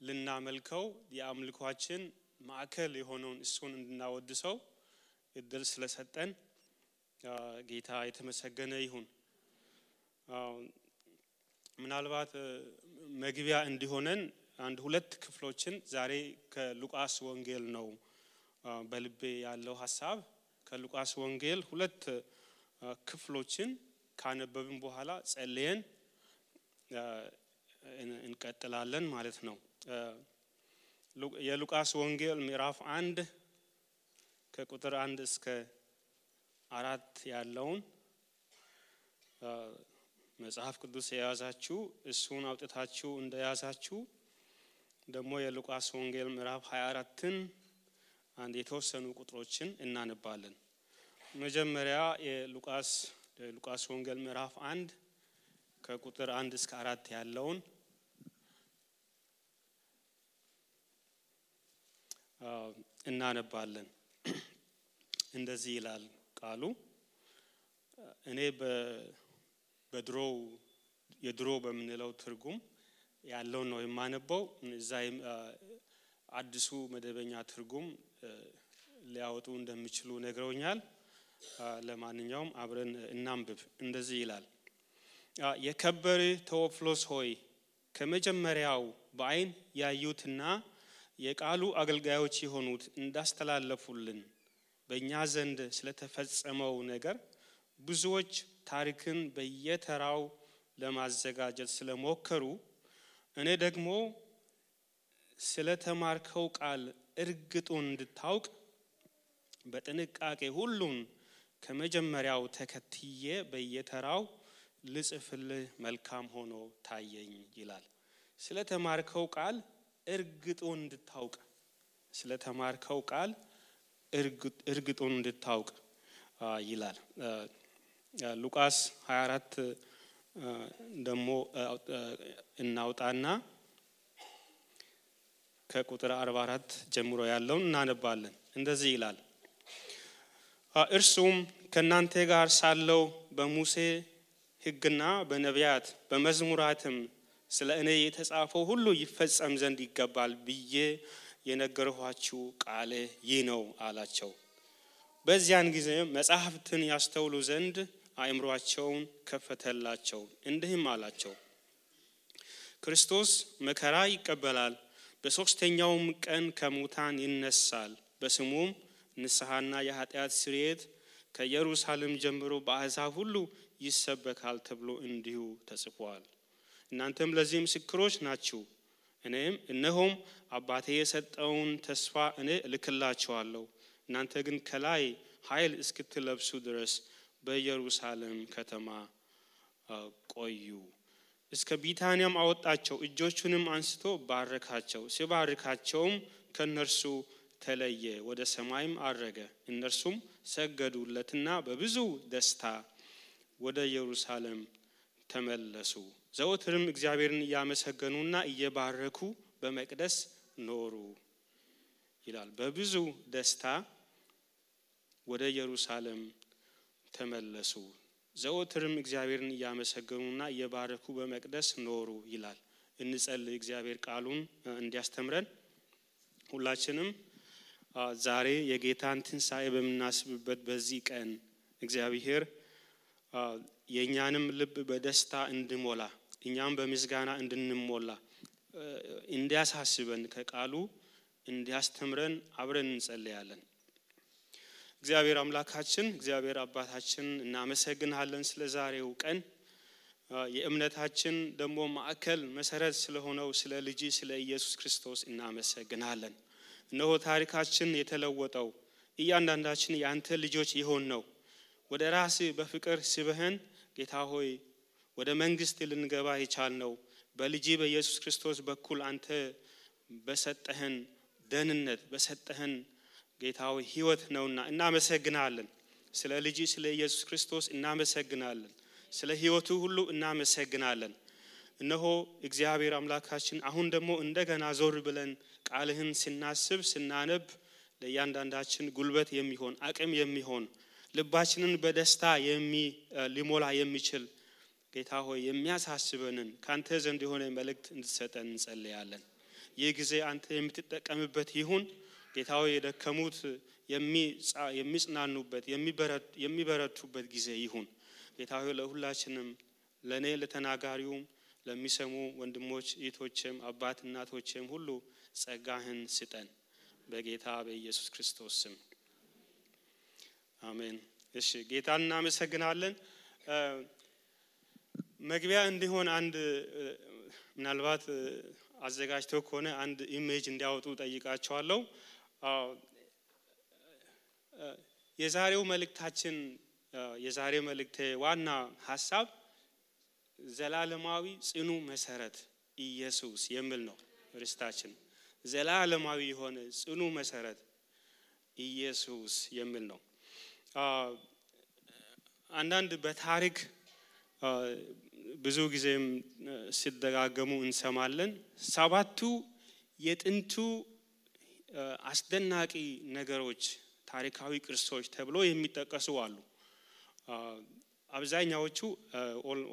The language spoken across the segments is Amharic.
ልናመልከው የአምልኳችን ማዕከል የሆነውን እሱን እንድናወድሰው እድል ስለሰጠን ጌታ የተመሰገነ ይሁን። ምናልባት መግቢያ እንዲሆነን አንድ ሁለት ክፍሎችን ዛሬ ከሉቃስ ወንጌል ነው በልቤ ያለው ሐሳብ። ከሉቃስ ወንጌል ሁለት ክፍሎችን ካነበብን በኋላ ጸልየን እንቀጥላለን ማለት ነው። የሉቃስ ወንጌል ምዕራፍ 1 ከቁጥር 1 እስከ 4 ያለውን መጽሐፍ ቅዱስ የያዛችሁ እሱን አውጥታችሁ እንደያዛችሁ ደግሞ የሉቃስ ወንጌል ምዕራፍ 24ን አንድ የተወሰኑ ቁጥሮችን እናነባለን። መጀመሪያ የሉቃስ ወንጌል ምዕራፍ 1 ከቁጥር 1 እስከ 4 ያለውን እናነባለን። እንደዚህ ይላል ቃሉ። እኔ የድሮ በምንለው ትርጉም ያለው ነው የማነበው። እዛይ አዲሱ መደበኛ ትርጉም ሊያወጡ እንደሚችሉ ነግረውኛል። ለማንኛውም አብረን እናንብብ። እንደዚህ ይላል። የከበረ ቴዎፍሎስ ሆይ ከመጀመሪያው በአይን ያዩትና የቃሉ አገልጋዮች የሆኑት እንዳስተላለፉልን በእኛ ዘንድ ስለተፈጸመው ነገር ብዙዎች ታሪክን በየተራው ለማዘጋጀት ስለሞከሩ እኔ ደግሞ ስለተማርከው ቃል እርግጡን እንድታውቅ በጥንቃቄ ሁሉን ከመጀመሪያው ተከትዬ በየተራው ልጽፍልህ መልካም ሆኖ ታየኝ ይላል። ስለተማርከው ቃል እርግጡን እንድታውቅ ስለተማርከው ቃል እርግጡን እንድታውቅ ይላል። ሉቃስ 24 ደግሞ እናውጣና ከቁጥር 44 ጀምሮ ያለውን እናነባለን። እንደዚህ ይላል። እርሱም ከናንተ ጋር ሳለው በሙሴ ሕግና በነቢያት በመዝሙራትም ስለ እኔ የተጻፈው ሁሉ ይፈጸም ዘንድ ይገባል ብዬ የነገርኋችሁ ቃል ይህ ነው አላቸው። በዚያን ጊዜ መጻሕፍትን ያስተውሉ ዘንድ አእምሮአቸውን ከፈተላቸው። እንዲህም አላቸው፣ ክርስቶስ መከራ ይቀበላል፣ በሶስተኛውም ቀን ከሙታን ይነሳል፣ በስሙም ንስሐና የኃጢአት ስርየት ከኢየሩሳሌም ጀምሮ በአሕዛብ ሁሉ ይሰበካል ተብሎ እንዲሁ ተጽፏል። እናንተም ለዚህ ምስክሮች ናችሁ። እነሆም አባቴ የሰጠውን ተስፋ እኔ እልክላችኋለሁ። እናንተ ግን ከላይ ኃይል እስክትለብሱ ድረስ በኢየሩሳሌም ከተማ ቆዩ። እስከ ቢታንያም አወጣቸው፣ እጆቹንም አንስቶ ባረካቸው። ሲባርካቸውም ከነርሱ ተለየ፣ ወደ ሰማይም አረገ። እነርሱም ሰገዱለትና በብዙ ደስታ ወደ ኢየሩሳሌም ተመለሱ። ዘወትርም እግዚአብሔርን እያመሰገኑና እየባረኩ በመቅደስ ኖሩ ይላል። በብዙ ደስታ ወደ ኢየሩሳሌም ተመለሱ። ዘወትርም እግዚአብሔርን እያመሰገኑና እየባረኩ በመቅደስ ኖሩ ይላል። እንጸልይ። እግዚአብሔር ቃሉን እንዲያስተምረን ሁላችንም ዛሬ የጌታን ትንሣኤ በምናስብበት በዚህ ቀን እግዚአብሔር የኛንም ልብ በደስታ እንድሞላ እኛም በምስጋና እንድንሞላ እንዲያሳስበን ከቃሉ እንዲያስተምረን አብረን እንጸልያለን። እግዚአብሔር አምላካችን እግዚአብሔር አባታችን እናመሰግናለን ስለ ዛሬው ቀን። የእምነታችን ደግሞ ማዕከል መሰረት ስለሆነው ስለ ልጅ ስለ ኢየሱስ ክርስቶስ እናመሰግናለን። እነሆ ታሪካችን የተለወጠው እያንዳንዳችን ያንተ ልጆች ይሆን ነው ወደ ራስ በፍቅር ስበህን ጌታ ሆይ ወደ መንግስት ልንገባ የቻልነው በልጅ በኢየሱስ ክርስቶስ በኩል አንተ በሰጠህን ደህንነት በሰጠህን ጌታ ሆይ ሕይወት ነውና እናመሰግናለን። ስለ ልጅ ስለ ኢየሱስ ክርስቶስ እናመሰግናለን። ስለ ሕይወቱ ሁሉ እናመሰግናለን። እነሆ እግዚአብሔር አምላካችን አሁን ደግሞ እንደገና ዞር ብለን ቃልህን ስናስብ ስናነብ ለእያንዳንዳችን ጉልበት የሚሆን አቅም የሚሆን ልባችንን በደስታ ሊሞላ የሚችል ጌታ ሆይ የሚያሳስበንን ካንተ ዘንድ የሆነ መልእክት እንድትሰጠን እንጸልያለን። የጊዜ አንተ የምትጠቀምበት ይሁን ጌታው የደከሙት የሚጽናኑበት የሚበረቱበት ጊዜ ይሁን ጌታው ለሁላችንም ለኔ ለተናጋሪው ለሚሰሙ ወንድሞች እህቶችም አባት እናቶችም ሁሉ ጸጋህን ስጠን በጌታ በኢየሱስ ክርስቶስ ስም አሜን እሺ ጌታን እናመሰግናለን መግቢያ እንዲሆን አንድ ምናልባት አዘጋጅተው ከሆነ አንድ ኢሜጅ እንዲያወጡ ጠይቃቸዋለሁ የዛሬው መልእክታችን የዛሬው መልእክቴ ዋና ሐሳብ ዘላለማዊ ጽኑ መሰረት ኢየሱስ የሚል ነው ርስታችን ዘላለማዊ የሆነ ጽኑ መሰረት ኢየሱስ የሚል ነው አንዳንድ በታሪክ ብዙ ጊዜም ሲደጋገሙ እንሰማለን ሰባቱ የጥንቱ አስደናቂ ነገሮች ታሪካዊ ቅርሶች ተብሎ የሚጠቀሱ አሉ አብዛኛዎቹ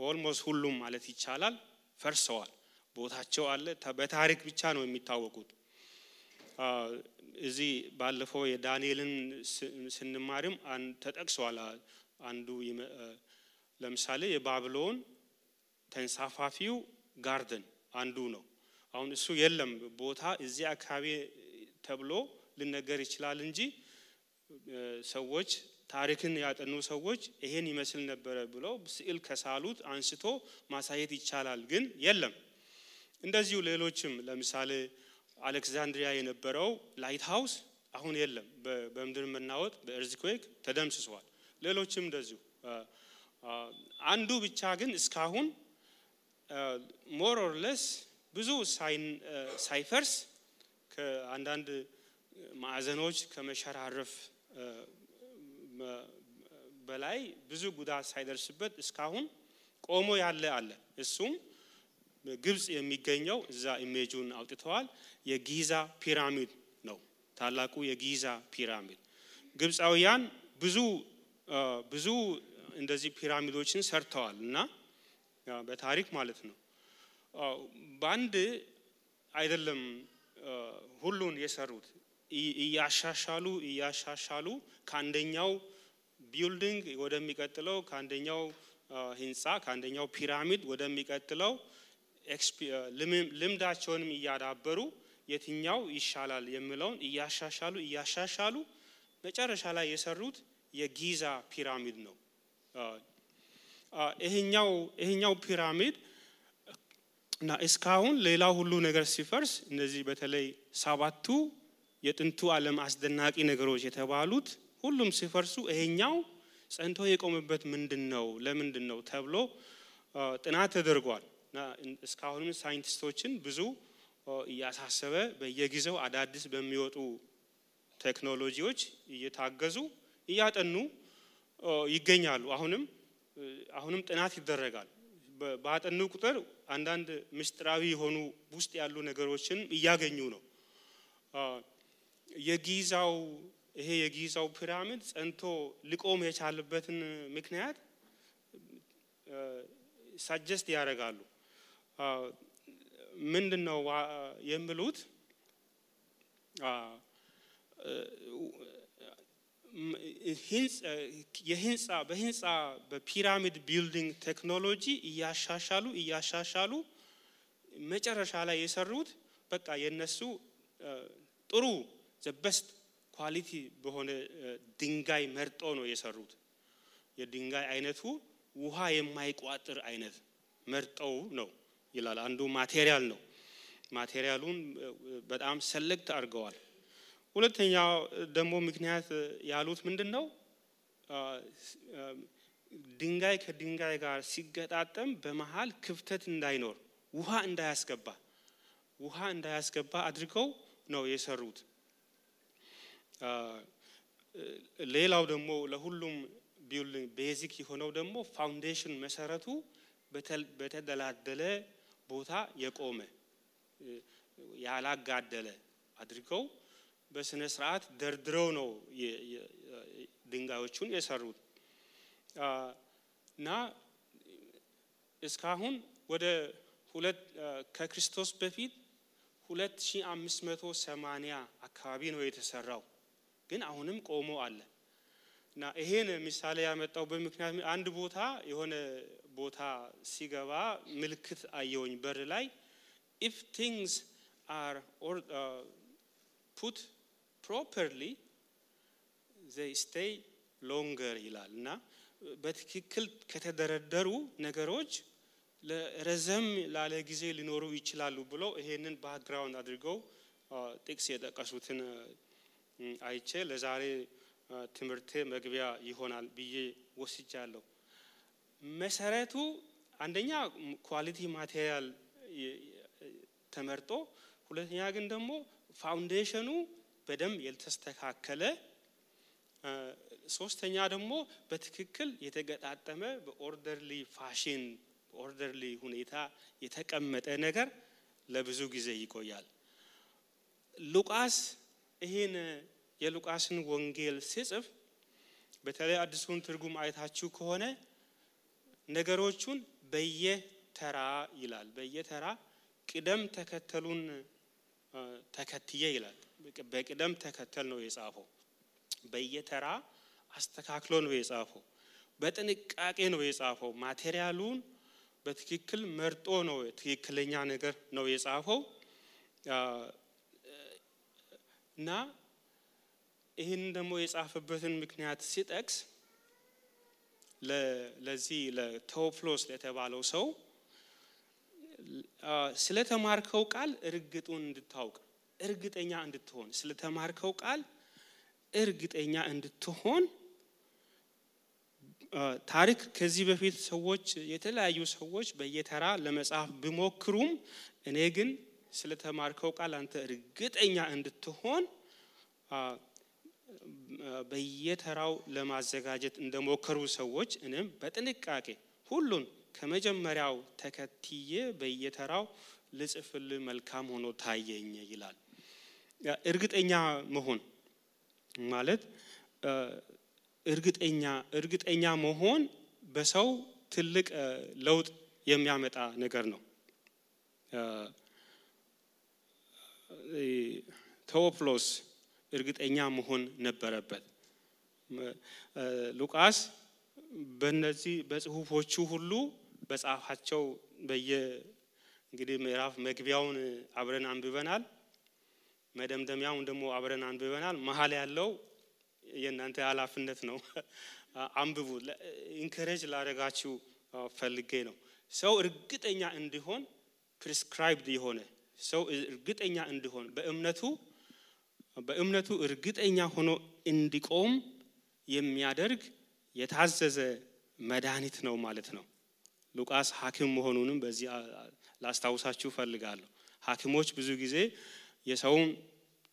ኦልሞስት ሁሉም ማለት ይቻላል ፈርሰዋል ቦታቸው አለ በታሪክ ብቻ ነው የሚታወቁት እዚህ ባለፈው የዳንኤልን ስንማርም ተጠቅሷል አንዱ ለምሳሌ የባቢሎን ተንሳፋፊው ጋርደን አንዱ ነው አሁን እሱ የለም ቦታ እዚህ አካባቢ ተብሎ ሊነገር ይችላል እንጂ ሰዎች ታሪክን ያጠኑ ሰዎች ይሄን ይመስል ነበር ብለው ስዕል ከሳሉት አንስቶ ማሳየት ይቻላል ግን የለም እንደዚሁ ሌሎችም ለምሳሌ አሌክሳንድሪያ የነበረው ላይት ሃውስ አሁን የለም በመድር መናወጥ በኤርዝኩዌክ ተደምስሷል ሌሎችም እንደዚሁ አንዱ ብቻ ግን እስካሁን ሞር ኦር ለስ ብዙ ሳይፈርስ ከአንዳንድ ማዕዘኖች ከመሸራረፍ በላይ ብዙ ጉዳት ሳይደርስበት እስካሁን ቆሞ ያለ አለ እሱም ግብጽ የሚገኘው እዛ ኢሜጁን አውጥተዋል የጊዛ ፒራሚድ ነው ታላቁ የጊዛ ፒራሚድ ግብጻውያን ብዙ እንደዚህ ፒራሚዶችን ሰርተዋልና በታሪክ ማለት ነው ባንድ አይደለም ሁሉን የሰሩት እያሻሻሉ ካንደኛው ቢልዲንግ ወደሚቀጥለው ካንደኛው ህንጻ ካንደኛው ፒራሚድ ወደሚቀጥለው ልምዳቸውንም እያዳበሩ የትኛው ይሻላል የሚለውን እያሻሻሉ መጨረሻ ላይ የሰሩት የጊዛ ፒራሚድ ነው ይሄኛው ፒራሚድ እና እስካሁን ሌላ ሁሉ ነገር ሲፈርስ እነዚህ በተለይ ሰባቱ የጥንቱ ዓለም አስደናቂ ነገሮች የተባሉት ሁሉም ሲፈርሱ ይሄኛው ጸንቶ የቆመበት ምንድነው ለምንድነው ተብሎ ጥናት ተደርጓል እና እስካሁንም ሳይንቲስቶችን ብዙ እያሳሰበ በየጊዜው አዳዲስ በሚወጡ ቴክኖሎጂዎች እየታገዙ እያጠኑ ይገኛሉ አሁንም ጥናት ይደረጋል ባጠኑ ቁጥር አንዳንድ ምስጢራዊ የሆኑ ውስጥ ያሉ ነገሮችን እያገኙ ነው የጊዛው ፒራሚድ ጸንቶ ሊቆም የቻለበትን ምክንያት ሳጀስት ያደርጋሉ ምንድነው የሚሉት በህንጻ በፒራሚድ ቢልዲንግ ቴክኖሎጂ እያሻሻሉ መጨረሻ ላይ የሰሩት በቃ የነሱ ጥሩ the best ኳሊቲ በሆነ ድንጋይ መርጦ ነው የሰሩት የድንጋይ አይነቱ ውሃ የማይቋጥር አይነት መርጠው ነው ይላል አንዱ ማቴሪያል ነው ማቴሪያሉን በጣም ሰሌክት አድርገዋል ሁለተኛው ደግሞ ምክንያት ያሉት ምንድነው ድንጋይ ከድንጋይ ጋር ሲገጣጠም በመሃል ክፍተት እንዳይኖር ውሃ እንዳያስገባ አድርገው ነው የሰሩት ሌላው ደግሞ ለሁሉም ቢልዲንግ ቤዚክ የሆነው ደግሞ ፋውንዴሽን መሰረቱ በተደላደለ ቦታ የቆመ ያላጋደለ አድርገው በስነ ስርዓት ደርድረው ነው ድንጋዮቹን የሰሩት እና እስካሁን ወደ ከክርስቶስ በፊት 2580 አካባቢ ነው የተሰራው ግን አሁንም ቆሞ አለ እና ይሄን ምሳሌ ያመጣው በምክንያት አንድ ቦታ የሆነ ቦታ ሲገባ ምልክት አየውኝ በር ላይ if things are put properly they stay longer ይላልና በትክክል ከተደረደሩ ነገሮች ለረዘም ላለ ጊዜ ሊኖሩ ይችላሉ ብሎ ይሄንን ባክግራውንድ አድርገው ጥቅስ የጠቀሱትን አይቼ ለዛሬ ትምርቴ መግቢያ ይሆናል ብዬ ወስጃለሁ መሰረቱ አንደኛ ኳሊቲ ማቴሪያል ተመርጦ ሁለተኛ ግን ደግሞ ፋውንዴሽኑ በደም ያልተስተካከለ ሶስተኛ ደግሞ በትክክል የተገጣጠመ በኦርደርሊ ፋሽን ኦርደርሊ ሁኔታ የተቀመጠ ነገር ለብዙ ጊዜ ይቆያል ሉቃስ ይሄን የሉቃስን ወንጌል ሲጽፍ በተለይ አዲሱን ትርጉም አይታችሁ ከሆነ ነገሮቹን በየተራ ይላል በየተራ ቅደም ተከተሉን ተከትዬ ይላል በቅደም ተከተል ነው የጻፈው በየተራ አስተካክሎ ነው የጻፈው በጥንቃቄ ነው የጻፈው ማቴሪያሉን በትክክል መርጦ ነው ትክክለኛ ነገር ነው የጻፈው እና ይሄን ደግሞ የጻፈበትን ምክንያት ሲጠቅስ ለዚህ ለቴዎፍሎስ ለተባለው ሰው ስለተማርከው ቃል እርግጡን እንድታውቅ እርግጠኛ እንድትሆን ስለተማርከው ቃል እርግጠኛ እንድትሆን ታሪክ ከዚህ በፊት ሰዎች የተለያዩ ሰዎች በየተራ ለመጻፍ ቢሞክሩም እኔ ግን ስለተማርከው ቃል አንተ እርግጠኛ እንድትሆን በየተራው ለማዘጋጀት እንደሞከሩ ሰዎች እኔም በጥንቃቄ ሁሉን ከመጀመሪያው ተከትዬ በየተራው ልጽፍል መልካም ሆኖ ታየኝ ይላል እርግጠኛ መሆን ማለት እርግጠኛ መሆን በሰው ትልቅ ለውጥ የሚያመጣ ነገር ነው ቴዎፍሎስ እርግጠኛ መሆን ነበረበት ሉቃስ በእነዚህ በጽሁፎቹ ሁሉ በጻፋቸው እንግዲህ ምዕራፍ መግቢያውን አብረን አንብበናል መደምደሚያውን ደግሞ አብረን አንብበናል መሐል ያለው የእናንተ ኃላፊነት ነው አንብቡ ኢንከሬጅ ላደርጋችሁ ፈልጌ ነው ሰው እርግጠኛ እንዲሆን ፕሪስክራይብድ የሆነ ሰው እርግጠኛ እንዲሆን በእምነቱ እርግጠኛ ሆኖ እንዲቆም የሚያደርግ የታዘዘ መድኃኒት ነው ማለት ነው ሉቃስ ሐኪም መሆኑንም በዚህ ላስታውሳችሁ ፈልጋለሁ ሐኪሞች ብዙ ጊዜ የሰውን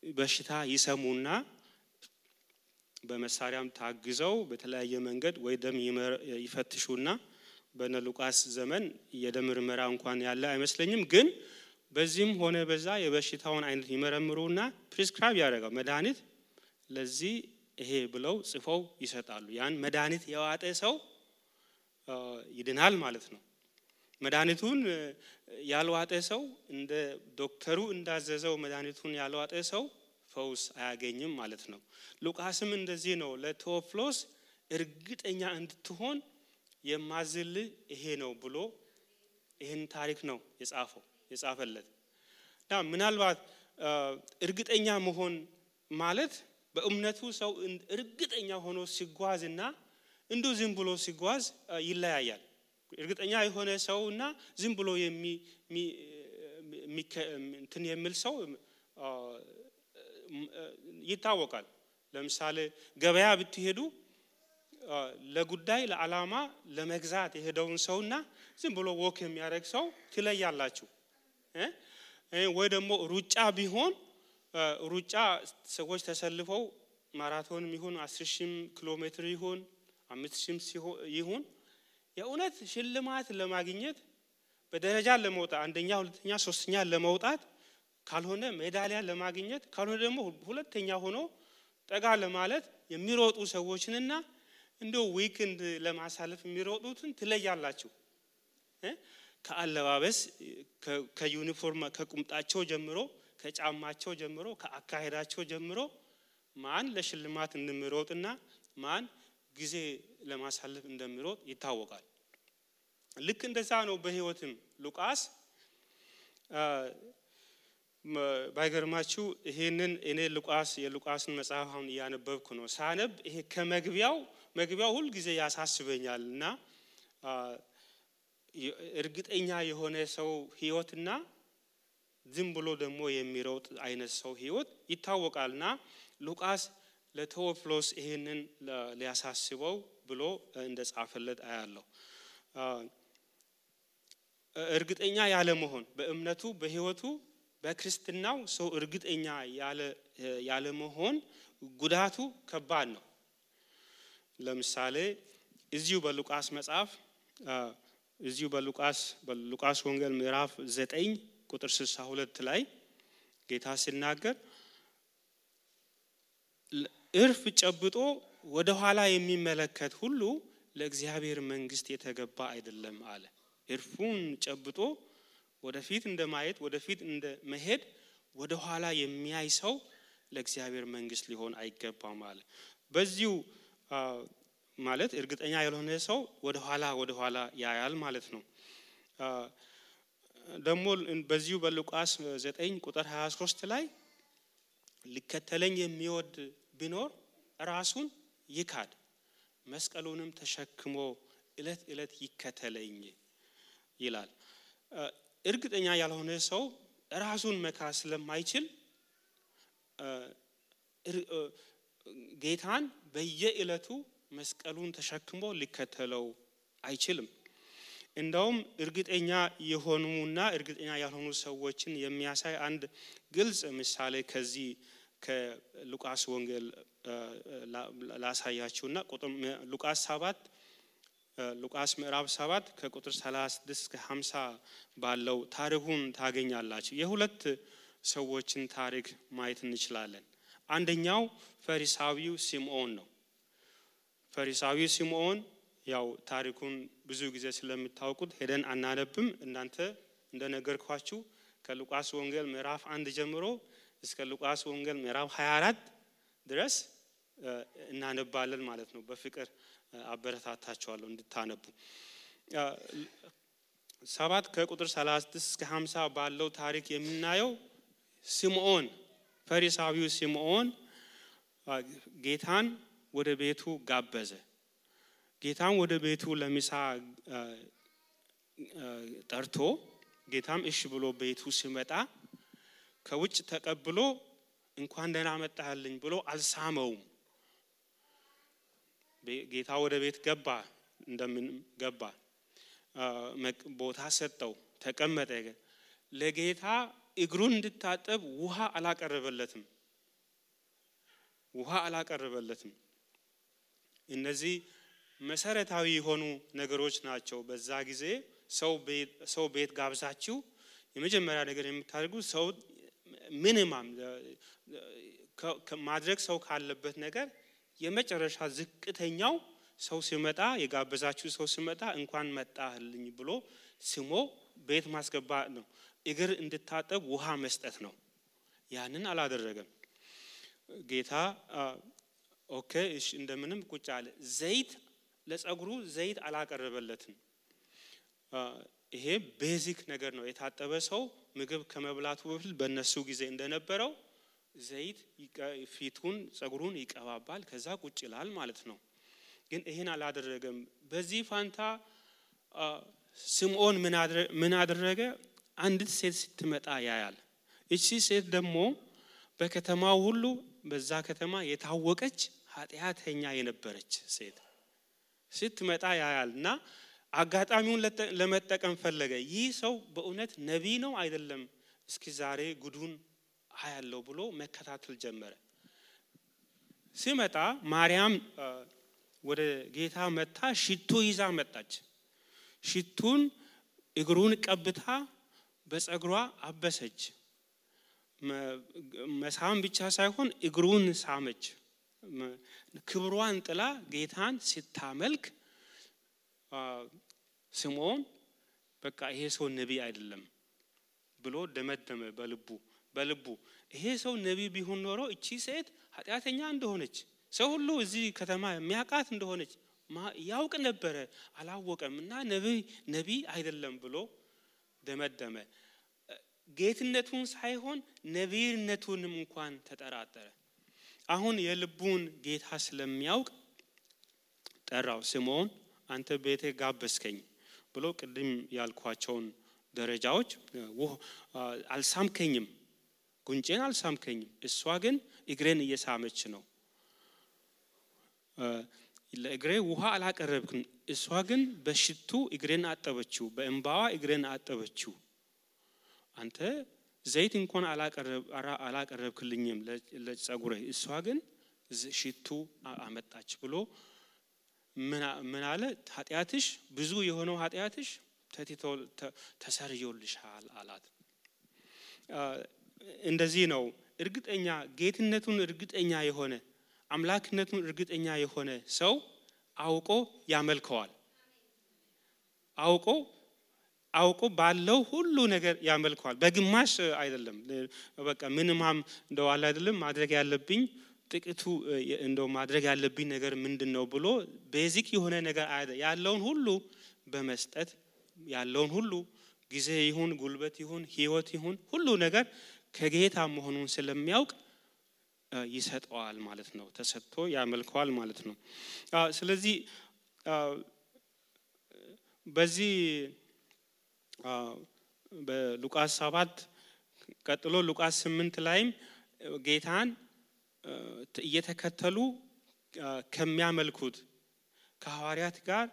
በሽታ ይሰሙና በመሳሪያም ታግዘው በተለያየ መንገድ ወይ ደም ይፈትሹና በነ ሉቃስ ዘመን የደም ምርመራ እንኳን ያለ አይመስለኝም ግን በዚህም ሆነ በዛ የበሽታውን አይነት ይመረምሩና ፕሪስክራይብ ያደርጋሉ መድኃኒት ለዚህ ይሄ ብለው ጽፈው ይሰጣሉ ያን መድኃኒት የዋጠ ሰው ይድናል ማለት ነው መድኃኒቱን ያልዋጠ ሰው እንደ ዶክተሩ እንዳዘዘው መድኃኒቱን ያልዋጠ ሰው ፈውስ አያገኝም ማለት ነው ሉቃስም እንደዚህ ነው ለቴዎፍሎስ እርግጠኛ እንድትሆን የማዝል ይሄ ነው ብሎ ይሄን ታሪክ ነው የጻፈለት ምናልባት እርግጠኛ መሆን ማለት በእምነቱ ሰው እርግጠኛ ሆኖ ሲጓዝና እንዶ ዝም ብሎ ሲጓዝ ይለያያል እርግጠኛ የሆነ ሰውና ዝም ብሎ እንትን የሚል ሰው ይታወቃል ለምሳሌ ገበያ ብትሄዱ ለጉዳይ ለዓላማ ለመግዛት የሄደውን ሰውና ዝም ብሎ ወክ የሚያደርግ ሰው ትለያላችሁ ወይ ደግሞ ሩጫ ቢሆን ሩጫ ሰዎች ተሰልፈው ማራቶንም ይሁን 10,000 ኪሎ ሜትር ይሁን 5,000 ይሁን የእውነት ሽልማት ለማግኘት በደረጃ ለመውጣት አንደኛ ሁለተኛ ሶስተኛ ለመውጣት ካልሆነ ሜዳሊያ ለማግኘት ካልሆነ ደግሞ ሁለተኛ ሆኖ ጠጋ ለማለት የሚሮጡ ሰዎችንና እንደው ዊክንድ ለማሳለፍ የሚሮጡትን ትለያላችሁ ከአለባበስ ከዩኒፎርም ከቁምጣቸው ጀምሮ ከጫማቸው ጀምሮ ከአካሄዳቸው ጀምሮ ማን ለሽልማት እንደሚሮጥና ማን ጊዜ ለማሳለፍ እንደሚሮጥ ይታወቃል። ልክ እንደዛ ነው በህይወትም ሉቃስ ባይገርማችሁ ይሄንን እኔ የሉቃስን መጽሐፍ አሁን ያነበብኩ ነው። ሳነብ ይሄ መግቢያው ሁሉ ጊዜ ያሳስበኛልና እርግጠኛ የሆነ ሰው ህይወትና ዝም ብሎ ደግሞ የሚሮጥ አይነት ሰው ህይወት ይታወቃልና ሉቃስ ለቴዎፍሎስ ይሄንን ሊያሳስበው ብሎ እንደጻፈለት አያለው። እርግጠኛ ያለ መሆን በእምነቱ በህይወቱ በክርስትናው ሰው እርግጠኛ ያለ መሆን ጉዳቱ ከባድ ነው። ለምሳሌ እዚሁ በሉቃስ መጽሐፍ እዚሁ በሉቃስ ወንጌል ምዕራፍ 9 ቁጥር 62 ላይ ጌታ ሲናገር እርፍ ጨብጦ ወደ ኋላ የሚመለከት ሁሉ ለእግዚአብሔር መንግስት የተገባ አይደለም አለ። እርፉን ጨብጦ ወደፊት እንደማየት ወደፊት እንደመሄድ ወደ ኋላ የሚያይ ሰው ለእግዚአብሔር መንግስት ሊሆን አይገባም አለ። በዚሁ ማለት እርግጠኛ ያልሆነ ሰው ወደ ኋላ ያያል ማለት ነው። ደግሞ በዚሁ በሉቃስ 9 ቁጥር 23 ላይ ሊከተለኝ የሚወድ ቢኖር ራሱን ይካድ መስቀሉንም ተሸክሞ እለት ይከተለኝ ይላል። እርግጠኛ ያልሆነ ሰው ራሱን መካድ ስለማይችል ጌታን በየእለቱ መስቀሉን ተሸክሞ ሊከተለው አይችልም። እንደውም እርግጠኛ የሆኑና እርግጠኛ ያልሆኑ ሰዎችን የሚያሳይ አንድ ግልጽ ምሳሌ ከዚህ ከሉቃስ ወንጌል ላሳያችሁና ሉቃስ ምዕራፍ 7 ከቁጥር 36 እስከ 50 ባለው ታሪኩን ታገኛላችሁ። የሁለት ሰዎችን ታሪክ ማየት እንችላለን። አንደኛው ፈሪሳዊው ሲምዖን ነው። ፈሪሳዊው ሲምዖን ያው ታሪኩን ብዙ ጊዜ ስለምታውቁት ሄደን አናነብም። እናንተ እንደነገርኳችሁ ከሉቃስ ወንጌል ምዕራፍ 1 ጀምሮ እስከ ሉቃስ ወንጌል ምዕራፍ 24 ድረስ እናነባለን ማለት ነው። በፍቅር አበረታታችኋለሁ እንድታነቡ። 7 ከቁጥር 36 እስከ 50 ባለው ታሪክ የምናየው ሲምዖን ፈሪሳዊው ሲምዖን ጌታን ወደ ቤቱ ጋበዘ። ጌታን ወደ ቤቱ ለምሳ ጠርቶ ጌታም እሺ ብሎ ቤቱ ሲመጣ ከውጭ ተቀብሎ እንኳን ደህና መጣህልኝ ብሎ አልሳመውም። ጌታ ወደ ቤት ገባ፣ እንደምን ገባ፣ ቦታ ሰጠው፣ ተቀመጠ። ለጌታ እግሩን እንድታጠብ ውሃ አላቀረበለትም። እነዚህ መሰረታዊ የሆኑ ነገሮች ናቸው። በዛ ጊዜ ሰው ቤት ጋብዛችሁ የመጀመሪያ ነገር የምታደርጉት ሰው ሚኒማም ማድረግ ሰው ካለበት ነገር የመጨረሻ ዝቅተኛው ሰው ሲመጣ የጋበዛችሁ ሰው ሲመጣ እንኳን መጣህልኝ ብሎ ስሞ ቤት ማስገባት ነው። እግር እንድታጠብ ውሃ መስጠት ነው። ያንን አላደረገም ጌታ። ኦኬ እሺ እንደምንም ቁጭ አለ። ለጸጉሩ ዘይት አላቀረበለትም። ይሄ ቤዚክ ነገር ነው። የታጠበ ሰው ምግብ ከመብላቱ በፊት በእነሱ ጊዜ እንደነበረው ዘይት ፊቱን ጸጉሩን ይቀባባል፣ ከዛ ቁጭ ይላል ማለት ነው። ግን ይሄን አላደረገም። በዚህ ፋንታ ሲምዖን ምን አደረገ? አንዲት ሴት ስትመጣ ያያል። እቺ ሴት ደግሞ በከተማው ሁሉ በዛ ከተማ የታወቀች ኃጢአተኛ የነበረች ሴት ስትመጣ ያያልና አጋጣሚውን ለመጠቀም ፈለገ። ይህ ሰው በእውነት ነቢይ ነው አይደለም፣ እስኪ ዛሬ ጉዱን አያለው ብሎ መከታተል ጀመረ። ሲመጣ ማርያም ወደ ጌታ መጣ፣ ሽቱ ይዛ መጣች። ሽቱን እግሩን ቀብታ በጸጉሯ አበሰች። መሳም ብቻ ሳይሆን እግሩን ሳመች። ክብሯን ጥላ ጌታን ስታመልክ ሲምዖን በቃ ይሄ ሰው ነቢይ አይደለም ብሎ ደመደመ በልቡ። በልቡ ይሄ ሰው ነቢይ ቢሆን ኖሮ እቺ ሴት ኃጢአተኛ እንደሆነች ሰው ሁሉ እዚህ ከተማ የሚያውቃት እንደሆነች ያውቅ ነበር አላወቀምና ነቢይ አይደለም ብሎ ደመደመ ጌትነቱን ሳይሆን ነቢይነቱንም እንኳን ተጠራጠረ አሁን የልቡን ጌታ ስለሚያውቅ ጠራው ስምዖን አንተ ቤቴ ጋበስከኝ ብሎ ቅድም ያልኳቸውን ደረጃዎች አልሳምከኝም ጉንጬን አልሳምከኝም እሷ ግን እግሬን እየሳመች ነው ለእግሬ ውሃ አላቀረብክም እሷ ግን በሽቱ እግሬን አጠበችው በእንባዋ እግሬን አጠበችው አንተ ዘይት እንኳን አላቀረብክልኝም ለጸጉሬ እሷ ግን ሽቱ አመጣች ብሎ ምን አለ ኃጢአትሽ ብዙ የሆነው ኃጢአትሽ ተሰርዮልሻል አላት እንደዚህ ነው እርግጠኛ ጌትነቱን እርግጠኛ የሆነ አምላክነቱን እርግጠኛ የሆነ ሰው አውቆ ያመልከዋል አውቆ ባለው ሁሉ ነገር ያመልከዋል በግማሽ አይደለም በቃ ምንማም እንደው አለ አይደለም ማድረግ ያለብኝ ጥቂቱ እንደው ማድረግ ያለብኝ ነገር ምንድነው ብሎ ቤዚክ የሆነ ነገር ያለውን ሁሉ በመስጠት ያለውን ሁሉ ጊዜ ይሁን ጉልበት ይሁን ህይወት ይሁን ሁሉ ነገር ከጌታ መሆኑን ስለሚያውቅ ይሰጠዋል ማለት ነው ተሰጥቶ ያመልከዋል ማለት ነው ስለዚህ በዚህ በሉቃስ 7 ቀጥሎ ሉቃስ 8 ላይም ጌታን እየተከተሉ ከሚያመልኩት ከሐዋርያት ጋር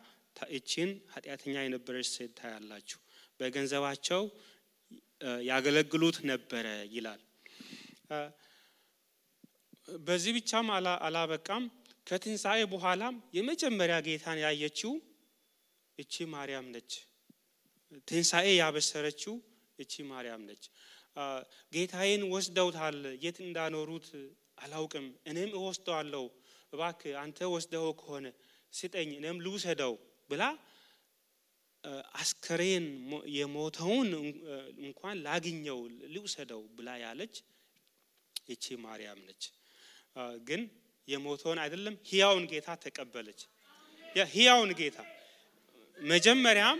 እቺን ኃጢአተኛ የነበረች ሴት ታያላችሁ በገንዘባቸው ያገለግሉት ነበር ይላል በዚህ ብቻም አላበቃም ከትንሳኤ በኋላም የመጀመሪያ ጌታን ያየችው እቺ ማርያም ነች ትንሳኤ ያበሰረችው እቺ ማርያም ነች ጌታዬን ወስደውታል የት እንዳኖሩት አላውቅም እኔም እወስደዋለሁ እባክህ አንተ ወስደው ከሆነ ስጠኝ እኔም ልውሰደው ብላ አስከሬን የሞተውን እንኳን ላግኘው ልውሰደው ብላ ያለች እቺ ማርያም ነች ግን የሞተውን አይደለም ሕያውን ጌታ ተቀበለች ሕያውን ጌታ መጀመሪያም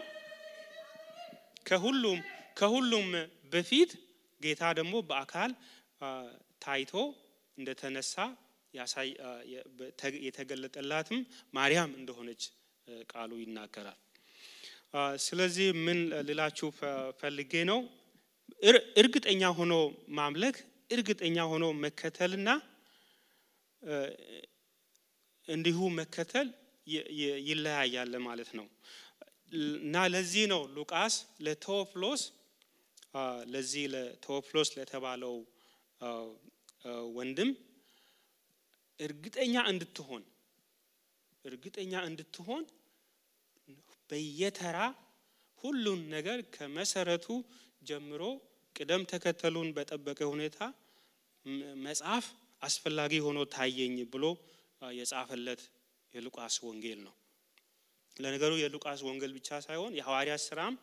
ከሁሉም በፊት ጌታ ደግሞ በአካል ታይቶ እንደተነሳ ያሳይ የተገለጠላትም ማርያም እንደሆነች ቃሉ ይናገራል ስለዚህ ምን ልላችሁ ፈልጌ ነው እርግጠኛ ሆኖ ማምለክ እርግጠኛ ሆኖ መከተልና እንዲሁ መከተል ይለያያል ማለት ነው እና ለዚህ ነው ሉቃስ ለቴዎፍሎስ ለተባለው ወንድም እርግጠኛ እንድትሆን በየተራ ሁሉን ነገር ከመሰረቱ ጀምሮ ቅደም ተከተሉን በጠበቀ ሁኔታ መጽሐፍ አስፈላጊ ሆኖ ታየኝ ብሎ የጻፈለት የሉቃስ ወንጌል ነው ለነገሩ የሉቃስ ወንጌል ብቻ ሳይሆን የሐዋርያት ሥራም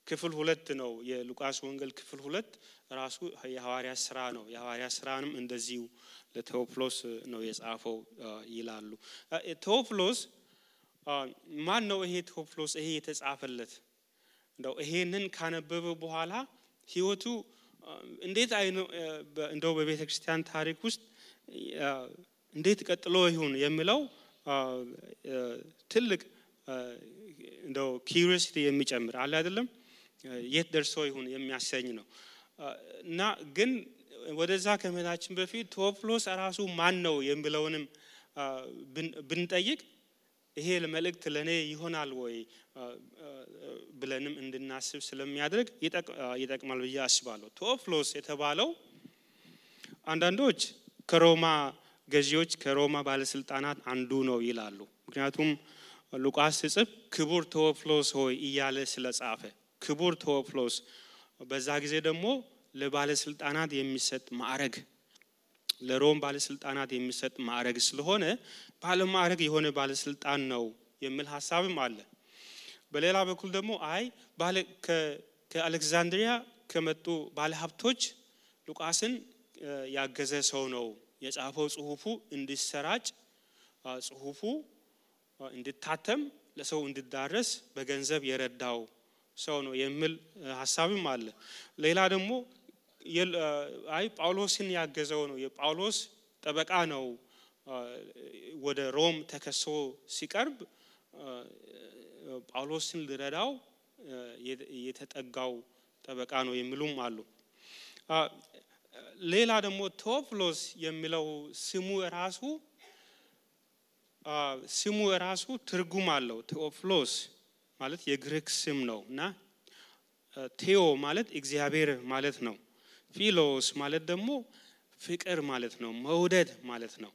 ክፍል 2 ነው የሉቃስ ወንጌል ክፍል 2 ራሱ የሐዋርያት ሥራ ነው የሐዋርያት ሥራንም እንደዚሁ ለቴዎፍሎስ ነው የጻፈው ይላሉ ቴዎፍሎስ ማን ነው ይሄ ቴዎፍሎስ ይሄ የተጻፈለት እንደው ይሄንን ካነበበ በኋላ ህይወቱ እንዴት እንደው በቤተክርስቲያን ታሪክ ውስጥ እንዴት ቀጥሎ ይሁን የሚለው ትልቅ እንደው ኪዩሪዮሲቲ የሚጨምር አለ አይደለም የት ደርሶ ይሁን የሚያሰኝ ነው እና ግን ወደዛ ከመሄዳችን በፊት ቴዎፍሎስ ራሱ ማን ነው የሚለውንም ብንጠይቅ ይሄ ለመልእክት ለኔ ይሆናል ወይ ብለንም እንድናስብ ስለሚያደርግ ይጠቅማል ብዬ አስባለሁ ቴዎፍሎስ የተባለው አንዳንዶች ከሮማ ገዢዎች ከሮማ ባለስልጣናት አንዱ ነው ይላሉ ምክንያቱም ሉቃስ ሲጽፍ ክቡር ቴዎፍሎስ ሆይ እያለ ስለጻፈ ክቡር ቴዎፍሎስ በዛ ጊዜ ደግሞ ለባለስልጣናት የሚሰጥ ማዕረግ ለሮም ባለስልጣናት የሚሰጥ ማዕረግ ስለሆነ ባለማዕረግ የሆነ ባለስልጣን ነው የሚል ሐሳብም አለ በሌላ በኩል ደግሞ ከአሌክሳንድሪያ ከመጡ ባለሀብቶች ሉቃስን ያገዘ ሰው ነው የጻፈው ጽሁፉ እንዲሰራጭ ጽሁፉ እንዲታተም ለሰው እንዲዳረስ በገንዘብ የረዳው ሰው ነው የሚል ሐሳብም አለ። ሌላ ደግሞ ጳውሎስን ያገዘው ነው የጳውሎስ ጠበቃ ነው ወደ ሮም ተከሶ ሲቀርብ ጳውሎስን ሊረዳው የተጠጋው ጠበቃ ነው የሚሉም አሉ። ሌላ ደግሞ ቴዎፍሎስ የሚለው ስሙ ራሱ ትርጉም አለው። ቴዎፍሎስ ማለት የግሪክ ስም ነውና ቴዎ ማለት እግዚአብሔር ማለት ነው። ፊሎስ ማለት ደግሞ ፍቅር ማለት ነው፣ መውደድ ማለት ነው።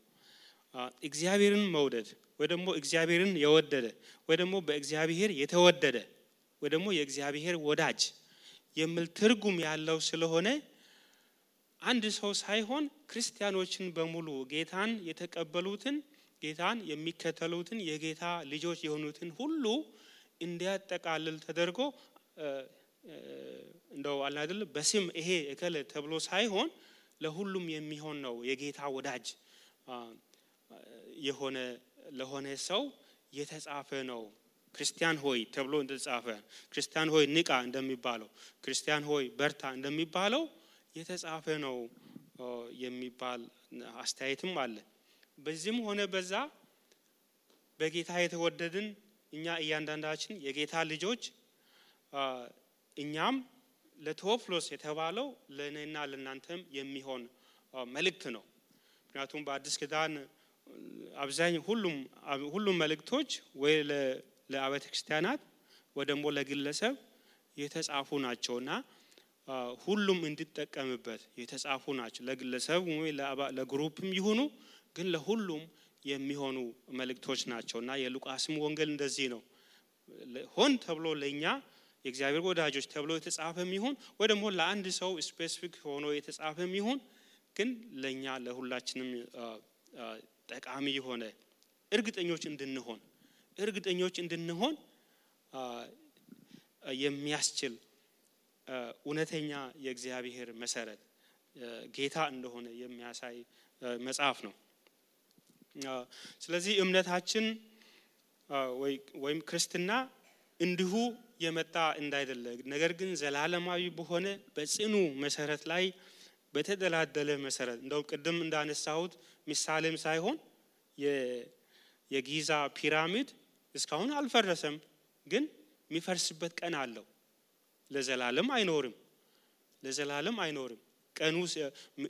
እግዚአብሔርን መውደድ ወይ ደግሞ እግዚአብሔርን የወደደ ወይ ደግሞ በእግዚአብሔር የተወደደ ወይ ደግሞ የእግዚአብሔር ወዳጅ የሚል ትርጉም ያለው ስለሆነ አንድ ሰው ሳይሆን ክርስቲያኖችን በሙሉ ጌታን የተቀበሉትን ጌታን የሚከተሉትን የጌታ ልጆች የሆኑትን ሁሉ እንዲያጠቃልል ተደርጎ እንደው አለ አይደል በስም ይሄ እከለ ተብሎ ሳይሆን ለሁሉም የሚሆን ነው። የጌታ ወዳጅ የሆነ ለሆነ ሰው የተጻፈ ነው። ክርስቲያን ሆይ ተብሎ እንደተጻፈ ክርስቲያን ሆይ ንቃ እንደሚባለው ክርስቲያን ሆይ በርታ እንደሚባለው የተጻፈ ነው የሚባል አስተያየትም አለ። በዚህም ሆነ በዛ በጌታ የተወደድን እኛ እያንዳንዳችን የጌታ ልጆች እኛም ለቴዎፍሎስ የተባለው ለኔና ለናንተም የሚሆን መልእክት ነው። ምክንያቱም በአዲስ ኪዳን አብዛኛው ሁሉም መልእክቶች ወይ ለአብያተ ክርስቲያናት ወይ ደግሞ ለግለሰብ የተጻፉ ናቸውና ሁሉም እንዲጠቀምበት የተጻፉ ናቸው። ለግለሰብ ወይ ለግሩፕም ይሁኑ ግን ለሁሉም የሚሆኑ መልእክቶች ናቸውና የሉቃስም ወንጌል እንደዚህ ነው። ሆን ተብሎ ለኛ የእግዚአብሔር ወዳጆች ተብሎ የተጻፈም ይሁን ወይ ደግሞ ለአንድ ሰው ስፔሲፊክ ሆኖ የተጻፈም ይሁን ግን ለኛ ለሁላችንም ጠቃሚ የሆነ እርግጠኞች እንድንሆን የሚያስችል እውነተኛ የእግዚአብሔር መሰረት ጌታ እንደሆነ የሚያሳይ መጽሐፍ ነው። ስለዚህ እምነታችን ወይም ክርስትና እንዲሁ የመጣ እንዳይደለ ነገር ግን ዘላለማዊ በሆነ በጽኑ መሰረት ላይ በተደላደለ መሰረት እንደው ቅድም እንዳነሳሁት ምሳሌም ሳይሆን የጊዛ ፒራሚድ እስካሁን አልፈረሰም፣ ግን የሚፈርስበት ቀን አለው። ለዘላለም አይኖርም። ቀኑ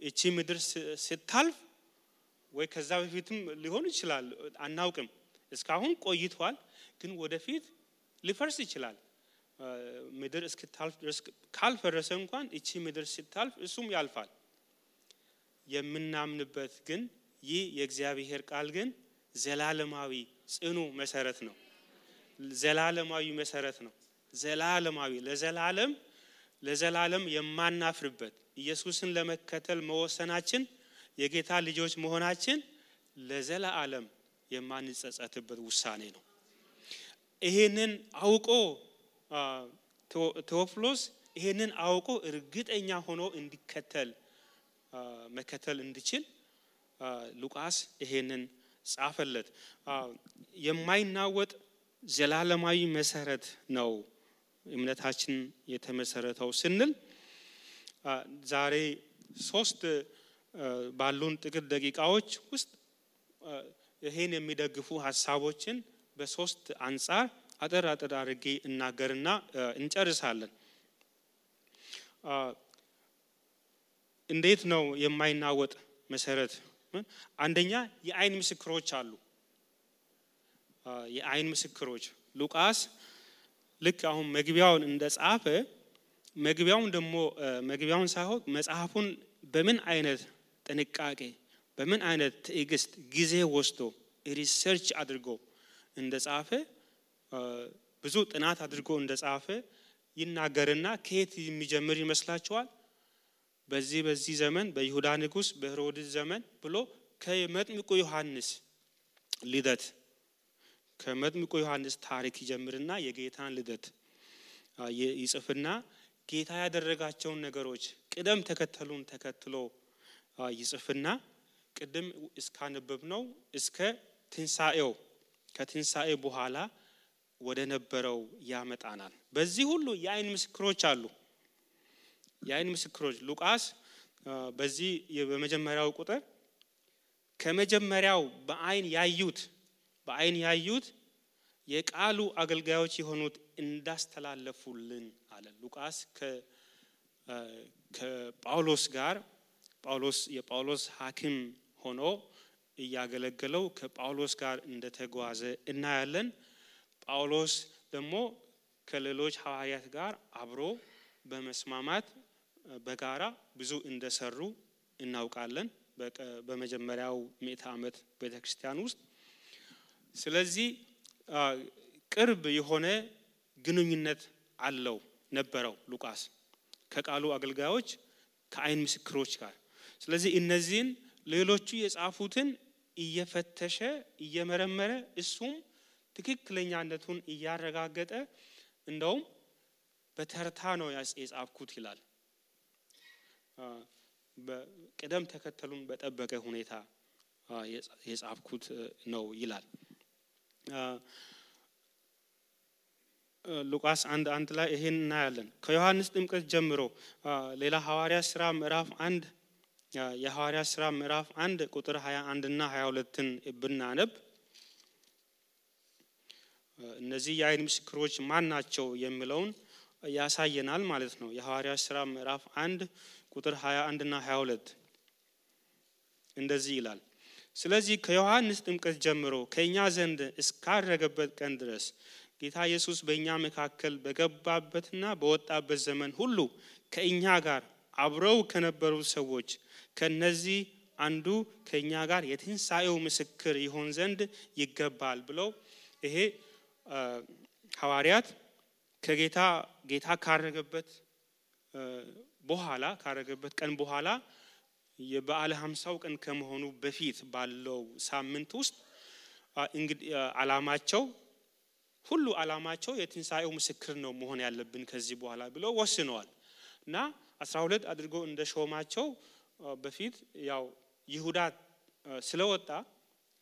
እቺ ምድር ስታልፍ ወይ ከዛ በፊትም ሊሆን ይችላል አናውቅም። እስካሁን ቆይቷል፣ ግን ወደፊት ሊፈርስ ይችላል። ምድር እስክታልፍ ድረስ ካልፈረሰ እንኳን እቺ ምድር ስታልፍ እሱም ያልፋል። የምናምንበት ግን ይህ የእግዚአብሔር ቃል ግን ዘላለማዊ ጽኑ መሰረት ነው። ዘላለማዊ መሰረት ነው። ዘላለማዊ ለዘላለም የማናፍርበት ኢየሱስን ለመከተል መወሰናችን የጌታ ልጆች መሆናችን ለዘላለም የማንጸጸትበት ውሳኔ ነው። ይሄንን አውቆ ቴዎፍሎስ ይሄንን አውቆ እርግጠኛ ሆኖ መከተል እንዲችል ሉቃስ ይሄንን ጻፈለት። የማይናወጥ ዘላለማዊ መሰረት ነው እምነታችን የተመሰረተው ስንል ዛሬ 3 ባሉን ጥቂት ደቂቃዎች ውስጥ ይሄን የሚደግፉ ሐሳቦችን በ3 አንፃር አጠር አድርጌ እናገርና እንጨርሳለን። እንዴት ነው የማይናወጥ መሰረት? አንደኛ የአይን ምስክሮች አሉ። የአይን ምስክሮች ሉቃስ ልክ አሁን መግቢያውን እንደጻፈ መግቢያውን ሳይሆን መጽሐፉን በምን አይነት ጥንቃቄ በምን አይነት ትዕግስት ጊዜ ወስዶ ሪሰርች አድርጎ እንደጻፈ ብዙ ጥናት አድርጎ እንደጻፈ ይናገርና ከየት የሚጀምር ይመስላችኋል? በዚህ ዘመን በይሁዳ ንጉስ በሄሮድስ ዘመን ብሎ ከመጥምቁ ዮሐንስ ልደት ከመጥምቁ ዮሐንስ ታሪክ ይጀምርና የጌታን ልደት ይጽፍና ጌታ ያደረጋቸውን ነገሮች ቅደም ተከተሉን ተከትሎ ይጽፍና ቅድም እስካነበብነው እስከ ትንሳኤው ከትንሳኤ በኋላ ወደ ነበረው ያመጣናል። በዚህ ሁሉ የአይን ምስክሮች አሉ። የአይን ምስክሮች ሉቃስ በዚህ በመጀመሪያው ቁጥር ከመጀመሪያው በአይን ያዩት የቃሉ አገልጋዮች የሆኑት እንዳስተላለፉልን አለ። ሉቃስ ከጳውሎስ ጋር የጳውሎስ ሐኪም ሆኖ እያገለገለው ከጳውሎስ ጋር እንደተጓዘ እናያለን። ጳውሎስ ደግሞ ከሌሎች ሐዋርያት ጋር አብሮ በመስማማት በጋራ ብዙ እንደሰሩ እናውቃለን በመጀመሪያው ምዕተ ዓመት ቤተክርስቲያን ውስጥ። ስለዚህ ቅርብ የሆነ ግንኙነት ነበረው ሉቃስ ከቃሉ አገልጋዮች ከአይን ምስክሮች ጋር። ስለዚህ እነዚህን ሌሎቹ የጻፉትን እየፈተሸ እየመረመረ እሱም ትክክለኛነቱን እያረጋገጠ እንደውም በተርታ ነው የጻፍኩት ይላል። በቅደም ተከተሉን በጠበቀ ሁኔታ የጻፍኩት ነው ይላል። ሉቃስ 1:1 ላይ ይሄን እናያለን። ከዮሐንስ ጥምቀት ጀምሮ ሌላ ሐዋርያት ሥራ ምዕራፍ 1 የሐዋርያት ሥራ ምዕራፍ 1 ቁጥር 21 እና 22ን ብናነብ እነዚህ የአይን ምስክሮች ማን ናቸው የሚለውን ያሳየናል ማለት ነው። የሐዋርያት ሥራ ምዕራፍ 1 ቁጥር 21 እና 22 እንደዚህ ይላል። ስለዚህ ከዮሐንስ ጥምቀት ጀምሮ ከኛ ዘንድ እስካረገበት ቀን ድረስ ጌታ ኢየሱስ በእኛ መካከል በገባበትና በወጣበት ዘመን ሁሉ ከእኛ ጋር አብረው ከነበሩ ሰዎች ከነዚህ አንዱ ከኛ ጋር የትንሳኤው ምስክር ይሆን ዘንድ ይገባል ብለው ይሄ ሐዋርያት ጌታ ካረገበት ቀን በኋላ የበዓለ 50 ቀን ከመሆኑ በፊት ባለው ሳምንት ውስጥ እንግዲህ ዓላማቸው የትንሳኤው ምስክር ነው መሆን ያለብን ከዚህ በኋላ ብለው ወስነዋል እና 12 አድርጎ እንደሾማቸው በፊት ያው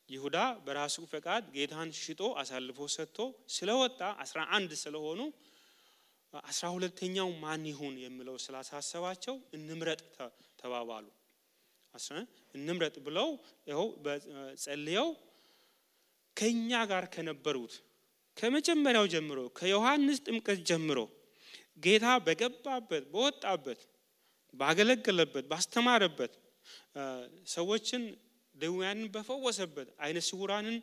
ይሁዳ በራሱ ፈቃድ ጌታን ሽጦ አሳልፎ ሰጥቶ ስለወጣ 11 ስለሆኑ 12ኛው ማን ይሁን የሚለው ስላሳሰባቸው እንምረጥ ተባባሉ። እንምረጥ ብለው ይኸው ጸልየው ከኛ ጋር ከነበሩት ከመጀመሪያው ጀምሮ ከዮሐንስ ጥምቀት ጀምሮ ጌታ በገባበት በወጣበት ባገለገለበት ባስተማረበት ሰዎችን ደዌያንን በፈወሰበት አይነ ስውራንን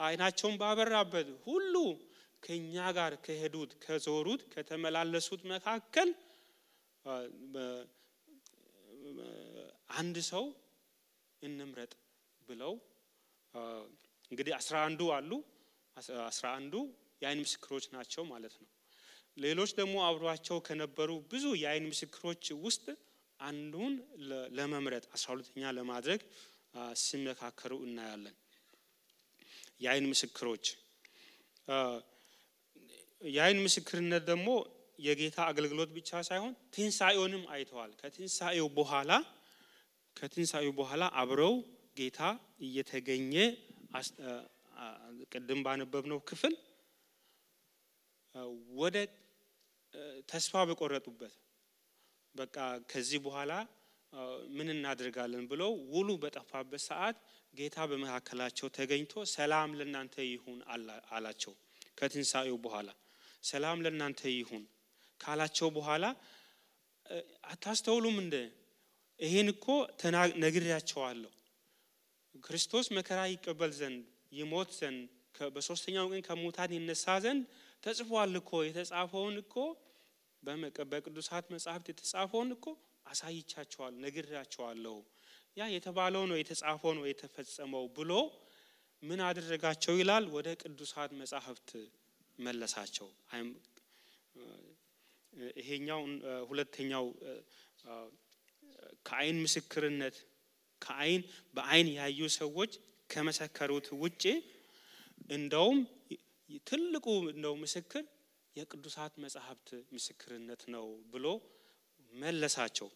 አይናቸውን ባበራበት ሁሉ ከኛ ጋር ከሄዱት ከዞሩት ከተመላለሱት መካከል አንድ ሰው እንምረጥ ብለው እንግዲህ 11 አሉ። 11 የአይን ምስክሮች ናቸው ማለት ነው። ሌሎች ደግሞ አብሯቸው ከነበሩ ብዙ የአይን ምስክሮች ውስጥ አንዱን ለመምረጥ 12ኛ ለማድረግ ሲመካከሩ እናያለን። የአይን ምስክሮች የአይን ምስክርነት ደግሞ የጌታ አገልግሎት ብቻ ሳይሆን ትንሳኤውንም አይተዋል። ከትንሳኤው በኋላ አብረው ጌታ እየተገኘ ቅድም ባነበብነው ክፍል ወደ ተስፋ በቆረጡበት በቃ ከዚህ በኋላ ምን እናደርጋለን ብለው ውሉ በጠፋበት ሰዓት ጌታ በመካከላቸው ተገኝቶ ሰላም ለእናንተ ይሁን አላቸው። ከትንሳኤው በኋላ ሰላም ለእናንተ ይሁን ካላቸው በኋላ አታስተውሉም እንደ ይሄን እኮ ነግሬያቸዋለሁ ክርስቶስ መከራ ይቀበል ዘንድ ይሞት ዘንድ በሶስተኛው ቀን ከሙታን ይነሳ ዘንድ ተጽፏል እኮ የተጻፈውን እኮ በቅዱሳት መጻሕፍት የተጻፈውን እኮ አሳይቻቸዋል ነግሬያቸዋለሁ ያ የተባለው ነው የተጻፈው ነው የተፈጸመው ብሎ ምን አደረጋቸው ይላል ወደ ቅዱሳት መጻሕፍት መለሳቸው። ይሄኛው ሁለተኛው ከአይን ምስክርነት በአይን ያዩ ሰዎች ከመሰከሩት ውጪ እንደውም ትልቁ ነው ምስክር የቅዱሳት መጻሕፍት ምስክርነት ነው ብሎ መለሳቸው።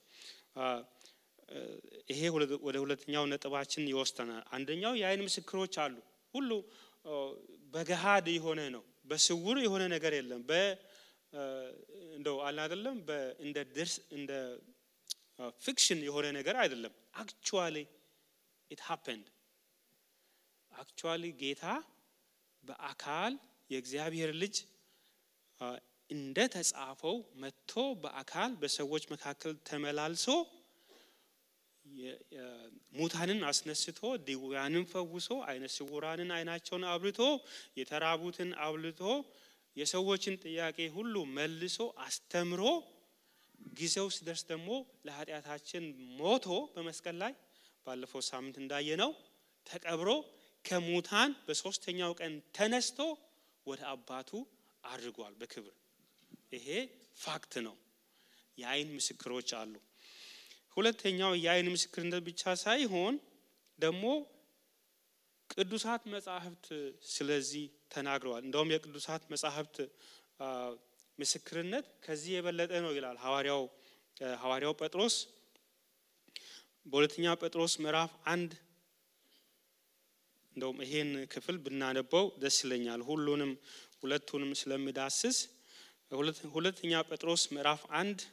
ይሄ ወደ ሁለተኛው ነጥባችን ይወስደናል። አንደኛው የአይን ምስክሮች አሉ። ሁሉ በገሃድ የሆነ ነው፣ በስውር የሆነ ነገር የለም። እንደው አለ አይደለም እንደ ፊክሽን የሆነ ነገር አይደለም። actually it happened actually ጌታ በአካል የእግዚአብሔር ልጅ እንደ ተጻፈው መጥቶ በአካል በሰዎች መካከል ተመላልሶ ሙታንን አስነስቶ ድውያንን ፈውሶ አይነ ስውራንን አይናቸውን አብርቶ የተራቡትን አብልቶ የሰዎችን ጥያቄ ሁሉ መልሶ አስተምሮ ጊዜው ሲደርስ ደግሞ ለኃጢአታችን ሞቶ በመስቀል ላይ ባለፈው ሳምንት እንዳየነው ተቀብሮ ከሙታን በሶስተኛው ቀን ተነስቶ ወደ አባቱ አድርጓል በክብር። ይሄ ፋክት ነው። የአይን ምስክሮች አሉ። ሁለተኛው የአይን ምስክርነት ብቻ ሳይሆን ደግሞ ቅዱሳት መጻሕፍት ስለዚህ ተናግረዋል። እንደውም የቅዱሳት መጻሕፍት ምስክርነት ከዚህ የበለጠ ነው ይላል ሐዋርያው ጴጥሮስ በሁለተኛ ጴጥሮስ ምዕራፍ 1። እንደውም ይሄን ክፍል ብናነበው ደስ ይለኛል ሁለቱንም ስለሚዳስስ። ሁለተኛ ጴጥሮስ ምዕራፍ 1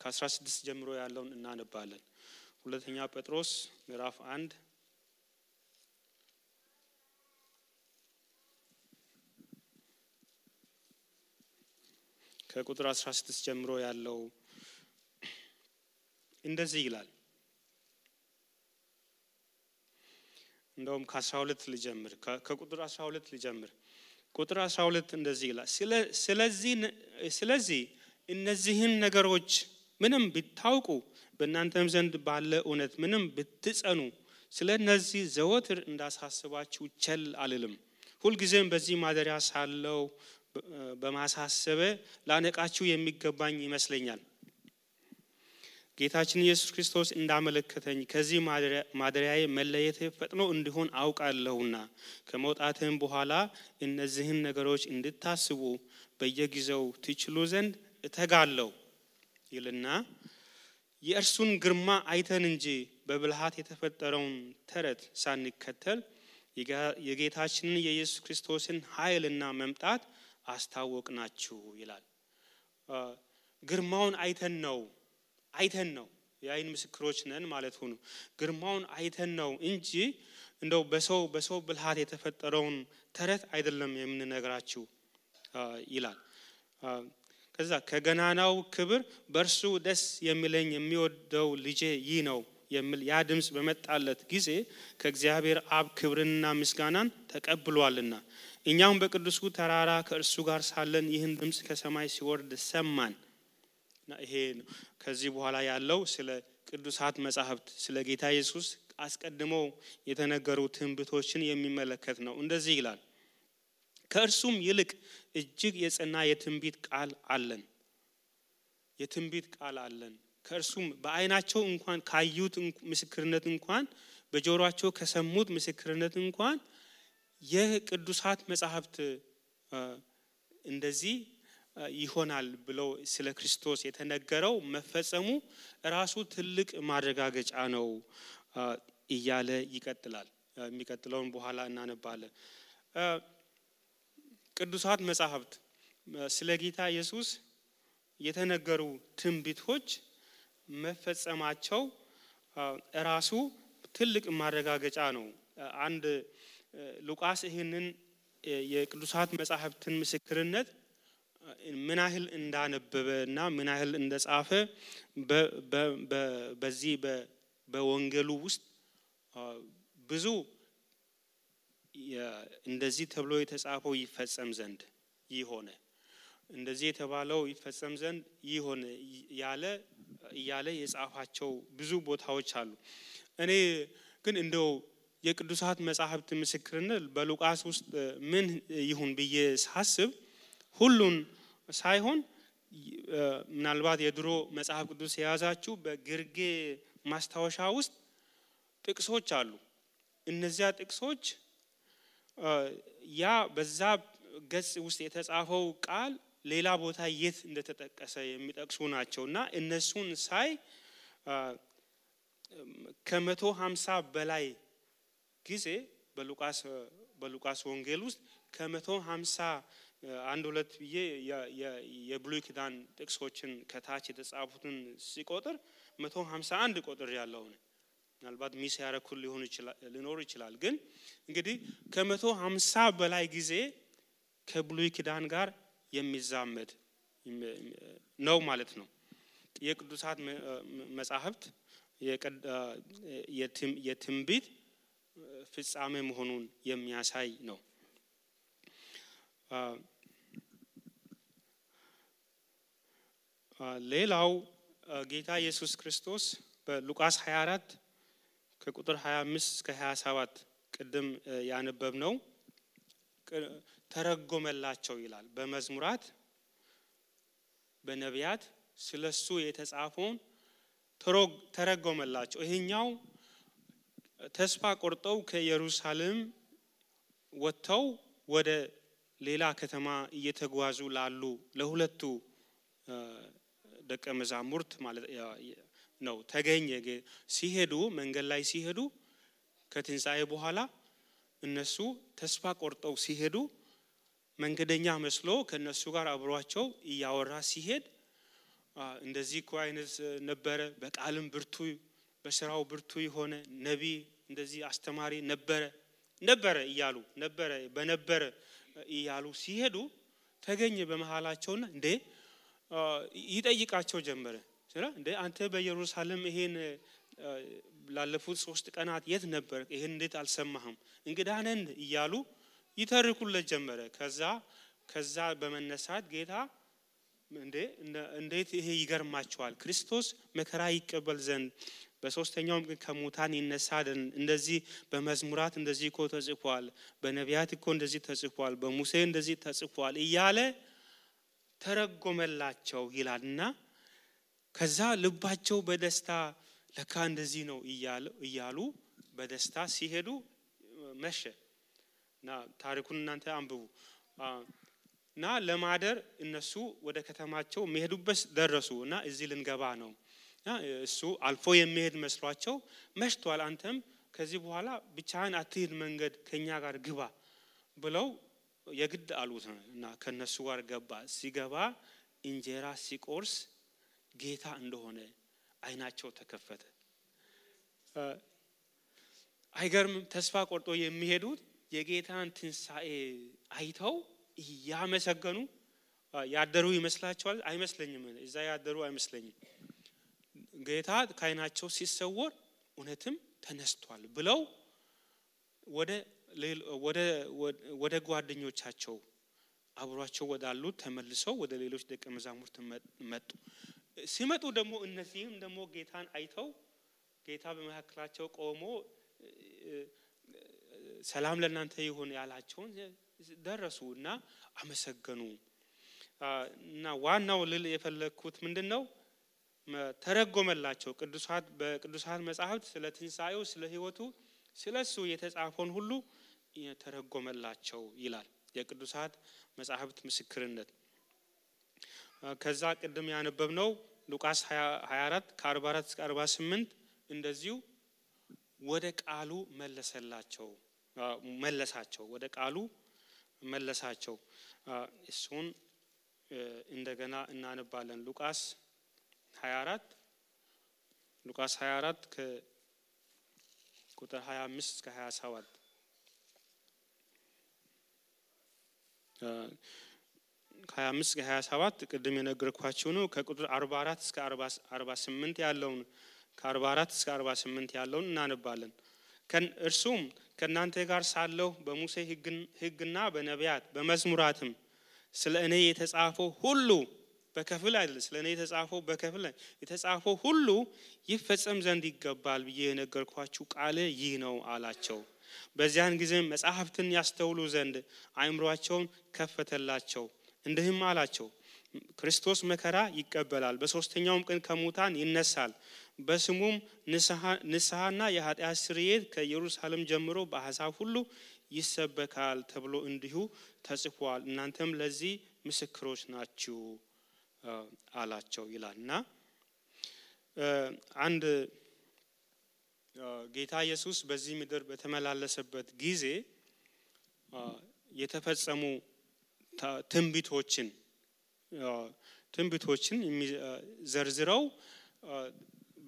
ከ16 ጀምሮ ያለውን እናነባለን። ሁለተኛ ጴጥሮስ ምዕራፍ 1 ከቁጥር 16 ጀምሮ ያለው እንደዚህ ይላል። እንደውም ከ12 ልጀምር፣ ከቁጥር 12 ልጀምር። ቁጥር 12 እንደዚህ ይላል። ስለዚህ እነዚህን ነገሮች ምንም ቢታውቁ በእናንተም ዘንድ ባለ እውነት ምንም ብትጸኑ ስለነዚህ ዘወትር እንዳሳስባችሁ ቸል አልልም። ሁልጊዜም በዚህ ማደሪያ ሳለው በማሳሰብ ላነቃችሁ የሚገባኝ ይመስለኛል። ጌታችን ኢየሱስ ክርስቶስ እንዳመለከተኝ ከዚህ ማደሪያዬ መለየት ፈጥኖ እንዲሆን አውቃለሁና ከመውጣትም በኋላ እነዚህን ነገሮች እንድታስቡ በየጊዜው ትችሉ ዘንድ እተጋለሁ ይልና የእርሱን ግርማ አይተን እንጂ በብልሃት የተፈጠረውን ተረት ሳንከተል የጌታችንን የኢየሱስ ክርስቶስን ኃይልና መምጣት አስታወቅናችሁ ይላል። ግርማውን አይተን ነው የአይን ምስክሮች ነን ማለት ነው። ግርማውን አይተን ነው እንጂ እንደው በሰው ብልሃት የተፈጠረውን ተረት አይደለም የምንነግራችሁ ይላል። ከዛ ከገናናው ክብር በእርሱ ደስ የሚለኝ የሚወደው ልጄ ይህ ነው የሚል ያ ድምጽ በመጣለት ጊዜ ከእግዚአብሔር አብ ክብርንና ምስጋናን ተቀብሏልና እኛም በቅዱሱ ተራራ ከእርሱ ጋር ሳለን ይህን ድምጽ ከሰማይ ሲወርድ ሰማን። ይሄ ከዚህ በኋላ ያለው ስለ ቅዱሳት መጻሕፍት ስለ ጌታ ኢየሱስ አስቀድመው የተነገሩ ትንቢቶችን የሚመለከት ነው። እንደዚህ ይላል። ከእርሱም ይልቅ እጅግ የጸና የትንቢት ቃል አለን። ከእርሱም በአይናቸው እንኳን ካዩት ምስክርነት እንኳን በጆሮአቸው ከሰሙት ምስክርነት እንኳን የቅዱሳት መጻሕፍት እንደዚህ ይሆናል ብለው ስለ ክርስቶስ የተነገረው መፈጸሙ ራሱ ትልቅ ማረጋገጫ ነው እያለ ይቀጥላል። የሚቀጥለውን በኋላ እናነባለን። ቅዱሳት መጻሕፍት ስለ ጌታ ኢየሱስ የተነገሩ ትንቢቶች መፈጸማቸው ራሱ ትልቅ ማረጋገጫ ነው። አንድ ሉቃስ ይህንን የቅዱሳት መጻሕፍትን ምስክርነት ምን ያህል እንዳነበበና ምን ያህል እንደጻፈ በዚህ በወንጌሉ ውስጥ ብዙ እንደዚህ ተብሎ የተጻፈው ይፈጸም ዘንድ ይሆነ እንደዚህ የተባለው ይፈጸም ዘንድ ይሆነ ያለ የጻፋቸው ብዙ ቦታዎች አሉ። እኔ ግን እንደው የቅዱሳት መጻሕፍት ምስክርነት በሉቃስ ውስጥ ምን ይሁን ብዬ ሳስብ ሁሉን ሳይሆን ምናልባት የድሮ መጽሐፍ ቅዱስ የያዛችሁ በግርጌ ማስታወሻ ውስጥ ጥቅሶች አሉ። እነዚያ ጥቅሶች ያ በዛ ገጽ ውስጥ የተጻፈው ቃል ሌላ ቦታ የት እንደተጠቀሰ የሚጠቅሱ ናቸውና እነሱን ሳይ ከ150 በላይ ጊዜ በሉቃስ ወንጌል ውስጥ ከ150 አንድ ሁለት ብዬ የብሉይ ኪዳን ጥቅሶችን ከታች የተጻፉትን ሲቆጥር 151 ቁጥር ያለው ነው። ምናልባት ሚስ ያረኩል ሊኖር ይችላል። ግን እንግዲህ ከ150 በላይ ጊዜ ከብሉይ ኪዳን ጋር የሚዛመድ ነው ማለት ነው። የቅዱሳት መጻሕፍት የትንቢት ፍጻሜ መሆኑን የሚያሳይ ነው። ሌላው ጌታ ኢየሱስ ክርስቶስ በሉቃስ 24 ከቁጥር 25 እስከ 27 ቅድም ያነበብነው ተረጎመላቸው ይላል። በመዝሙራት በነቢያት ስለሱ የተጻፈውን ተረጎመላቸው። ይሄኛው ተስፋ ቆርጠው ከኢየሩሳሌም ወጥተው ወደ ሌላ ከተማ እየተጓዙ ላሉ ለሁለቱ ደቀ መዛሙርት ማለት ነው ተገኘ። ሲሄዱ መንገድ ላይ ሲሄዱ ከትንሣኤ በኋላ እነሱ ተስፋ ቆርጠው ሲሄዱ መንገደኛ መስሎ ከነሱ ጋር አብሯቸው እያወራ ሲሄድ እንደዚህ እኮ አይነት ነበረ፣ በቃልም ብርቱ በስራው ብርቱ የሆነ ነቢይ እንደዚህ አስተማሪ ነበረ እያሉ በነበረ እያሉ ሲሄዱ ተገኘ በመሃላቸውና እንዴ ይጠይቃቸው ጀመረ። እንዴ አንተ በኢየሩሳሌም ይሄን ላለፉት 3 ቀናት የት ነበር? ይሄን እንዴት አልሰማህም? እንግዳ ነን እያሉ ይተርኩለት ጀመረ። ከዛ በመነሳት ጌታ እንዴት ይሄ ይገርማቸዋል፣ ክርስቶስ መከራ ይቀበል ዘንድ በሶስተኛውም ቀን ከሙታን ይነሳ ዘንድ እንደዚህ በመዝሙራት እንደዚህ እኮ ተጽፏል፣ በነቢያት እኮ እንደዚህ ተጽፏል፣ በሙሴ እንደዚህ ተጽፏል እያለ ተረጎመላቸው ይላልና ከዛ ልባቸው በደስታ ለካ እንደዚህ ነው እያሉ በደስታ ሲሄዱ መሸና ታሪኩን እናንተ አንብቡ እና ለማደር እነሱ ወደ ከተማቸው መሄዱበት ደረሱና እዚህ ልንገባ ነው። እሱ አልፎ የሚሄድ መስሏቸው መሽቷል፣ አንተም ከዚህ በኋላ ብቻህን አትሂድ፣ መንገድ ከኛ ጋር ግባ ብለው የግድ አሉትና ከነሱ ጋር ገባ። ሲገባ እንጀራ ሲቆርስ ጌታ እንደሆነ አይናቸው ተከፈተ። አይገርምም? ተስፋ ቆርጦ የሚሄዱት የጌታን ትንሣኤ አይተው ያመሰገኑ ያደሩ ይመስላቸዋል? አይመስለኝም። እዛ ያደሩ አይመስለኝም። ጌታ ከአይናቸው ሲሰወር እውነትም ተነስቷል ብለው ወደ ጓደኞቻቸው አብሯቸው ወዳሉት ተመልሰው ወደ ሌሎች ደቀ መዛሙርት መጡ። ሲመጡ ደግሞ እነዚህም ደግሞ ጌታን አይተው ጌታ በመካከላቸው ቆሞ ሰላም ለእናንተ ይሁን ያላቸውን ደረሱና አመሰገኑ። እና ዋናው ልል የፈለኩት ምንድነው? ተረጎመላቸው። በቅዱሳት መጻሕፍት ስለ ትንሣኤው ስለ ሕይወቱ ስለሱ የተጻፈውን ሁሉ ተረጎመላቸው ይላል የቅዱሳት መጻሕፍት ምስክርነት። ከዛ ቅድም ያነበብነው ሉቃስ 24 ከ44 እስከ 48 እንደዚሁ ወደ ቃሉ መለሳቸው ወደ ቃሉ መለሳቸው። እሱን እንደገና እናነባለን። ሉቃስ 24 ከቁጥር 25 እስከ 27 25 እስከ 27 ቅድም የነገርኳችሁ ነው። ከቁጥር 44 እስከ 48 ያለውን ከ44 እስከ 48 ያለውን እናነባለን። እርሱም ከናንተ ጋር ሳለሁ በሙሴ ሕግና በነቢያት በመዝሙራትም ስለ እኔ የተጻፈው ሁሉ በከፊል አይደለም፣ ስለ እኔ የተጻፈው በከፊል የተጻፈው ሁሉ ይፈጸም ዘንድ ይገባል ብዬ የነገርኳችሁ ቃል ይህ ነው አላቸው። በዚያን ጊዜ መጻሕፍትን ያስተውሉ ዘንድ አእምሮአቸውን ከፈተላቸው። እንዲህም አላቸው፣ ክርስቶስ መከራ ይቀበላል፣ በሶስተኛውም ቀን ከሙታን ይነሳል፣ በስሙም ንስሐና የኃጢአት ስርየት ከኢየሩሳሌም ጀምሮ በአሕዛብ ሁሉ ይሰበካል ተብሎ እንዲሁ ተጽፏል። እናንተም ለዚህ ምስክሮች ናችሁ አላቸው ይላልና አንድ ጌታ ኢየሱስ በዚህ ምድር በተመላለሰበት ጊዜ የተፈጸሙ ትንቢቶችን ዘርዝረው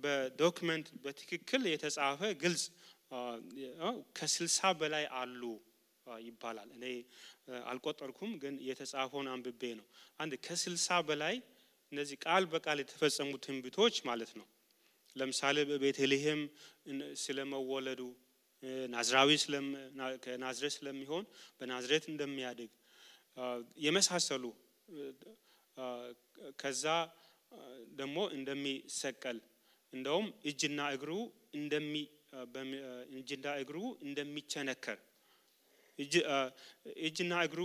በዶክመንት በትክክል የተጻፈ ግልጽ ከ60 በላይ አሉ ይባላል። እኔ አልቆጠርኩም ግን የተጻፈውን አንብቤ ነው። አንድ ከ60 በላይ እነዚህ ቃል በቃል የተፈጸሙ ትንቢቶች ማለት ነው። ለምሳሌ በቤተልሔም ስለመወለዱ ናዝራዊ ከናዝሬት ስለሚሆን በናዝሬት እንደሚያድግ የመሳሰሉ ከዛ ደግሞ እንደሚሰቀል እንደውም እጅና እግሩ እንደሚቸነከር እጅና እግሩ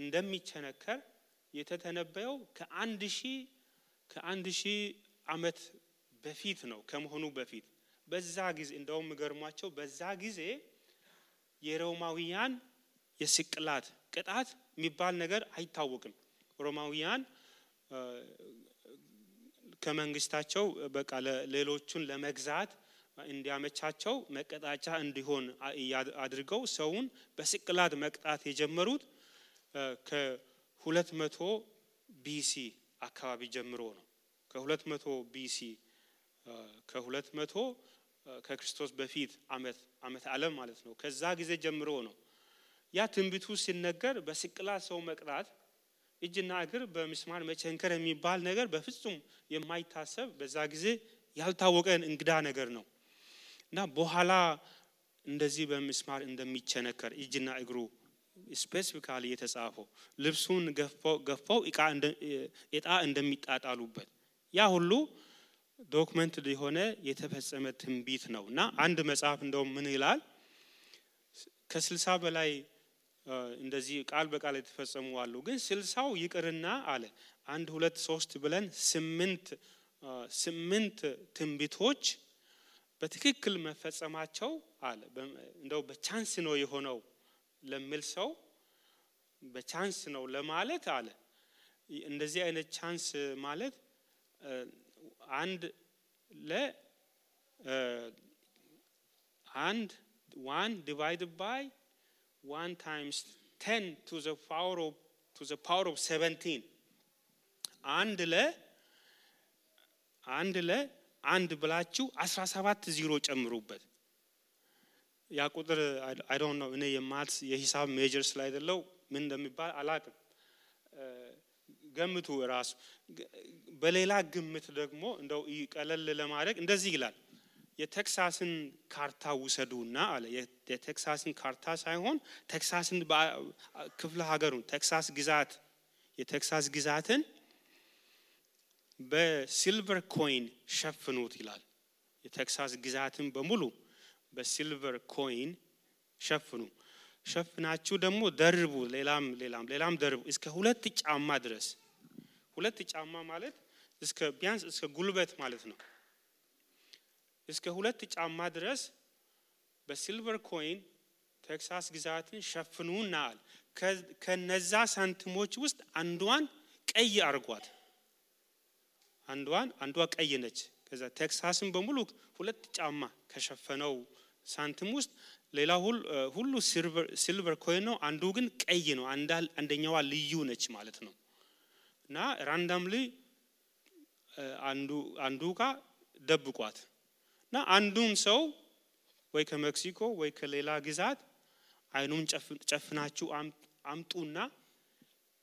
እንደሚቸነከር የተተነበየው ከአንድ ሺህ ዓመት በፊት ነው ከመሆኑ በፊት በዛ ጊዜ እንደውም ገርሟቸው በዛ ጊዜ የሮማውያን የስቅላት ቅጣት የሚባል ነገር አይታወቅም። ሮማውያን ከመንግስታቸው በቃ ሌሎቹን ለመግዛት እንዲያመቻቸው መቀጣጫ እንዲሆን አድርገው ሰውን በስቅላት መቅጣት የጀመሩት ከ200 BC አካባቢ ጀምሮ ነው። ከ200 BC ከ200 ከክርስቶስ በፊት ዓመት ዓለም ማለት ነው። ከዛ ጊዜ ጀምሮ ነው ያ ትንቢቱ ሲነገር በስቅላት ሰው መቅጣት እጅና እግር በምስማር መቸንከር የሚባል ነገር በፍጹም የማይታሰብ በዛ ጊዜ ያልታወቀ እንግዳ ነገር ነው እና በኋላ እንደዚህ በምስማር እንደሚቸነከር እጅና እግሩ ስፔሲፊካሊ የተጻፈው ልብሱን ገፈው ዕጣ እንደሚጣጣሉበት ያ ሁሉ ዶክመንት የሆነ የተፈጸመ ትንቢት ነውና አንድ መጽሐፍ እንደውም ምን ይላል ከ60 በላይ እንደዚህ ቃል በቃል የተፈጸሙ አሉ ግን 60ው ይቅርና አለ 1 2 3 ብለን 8 ትንቢቶች በትክክል መፈጸማቸው አለ እንደው በቻንስ ነው የሆነው ለሚል ሰው በቻንስ ነው ለማለት አለ እንደዚህ አይነት ቻንስ ማለት አንድ 1 divided by 1 times 10 to the power of 17 አንድ ብላችሁ 17 ዜሮ ጨምሩበት ያ ቁጥር I don't know እኔ የሂሳብ ሜጀር ስላይደለው ምን እንደሚባል አላቅም ገምቱ ራሱ በሌላ ግምት ደግሞ እንደው ይቀለል ለማድረግ እንደዚህ ይላል የቴክሳስን ካርታ ውሰዱና አለ የቴክሳስን ካርታ ሳይሆን ቴክሳስን ክፍለ ሀገሩን የቴክሳስ ግዛትን በሲልቨር ኮይን ሸፍኑት ይላል የቴክሳስ ግዛትን በሙሉ በሲልቨር ኮይን ሸፍናችሁ ደግሞ ደርቡ ሌላም ደርቡ እስከ 2 ጫማ ድረስ 2 ጫማ ማለት ቢያንስ እስከ ጉልበት ማለት ነው እስከ 2 ጫማ ድረስ በሲልቨር ኮይን ቴክሳስ ግዛትን ሸፍኑናል ከነዛ ሳንቲሞች ውስጥ አንዷን ቀይ አርጓት አንዷ ቀይ ነች ከዛ ቴክሳስን በሙሉ 2 ጫማ ከሸፈነው ሳንቲም ውስጥ ሌላ ሁሉ ሲልቨር ኮይን ነው አንዱ ግን ቀይ ነው አንደኛዋ ልዩ ነች ማለት ነው እና ራንዳምሊ አንዱ ጋር ደብቋት እና አንዱን ሰው ወይ ከሜክሲኮ ወይ ከሌላ ግዛት አይኑን ጨፍናችሁ አምጡና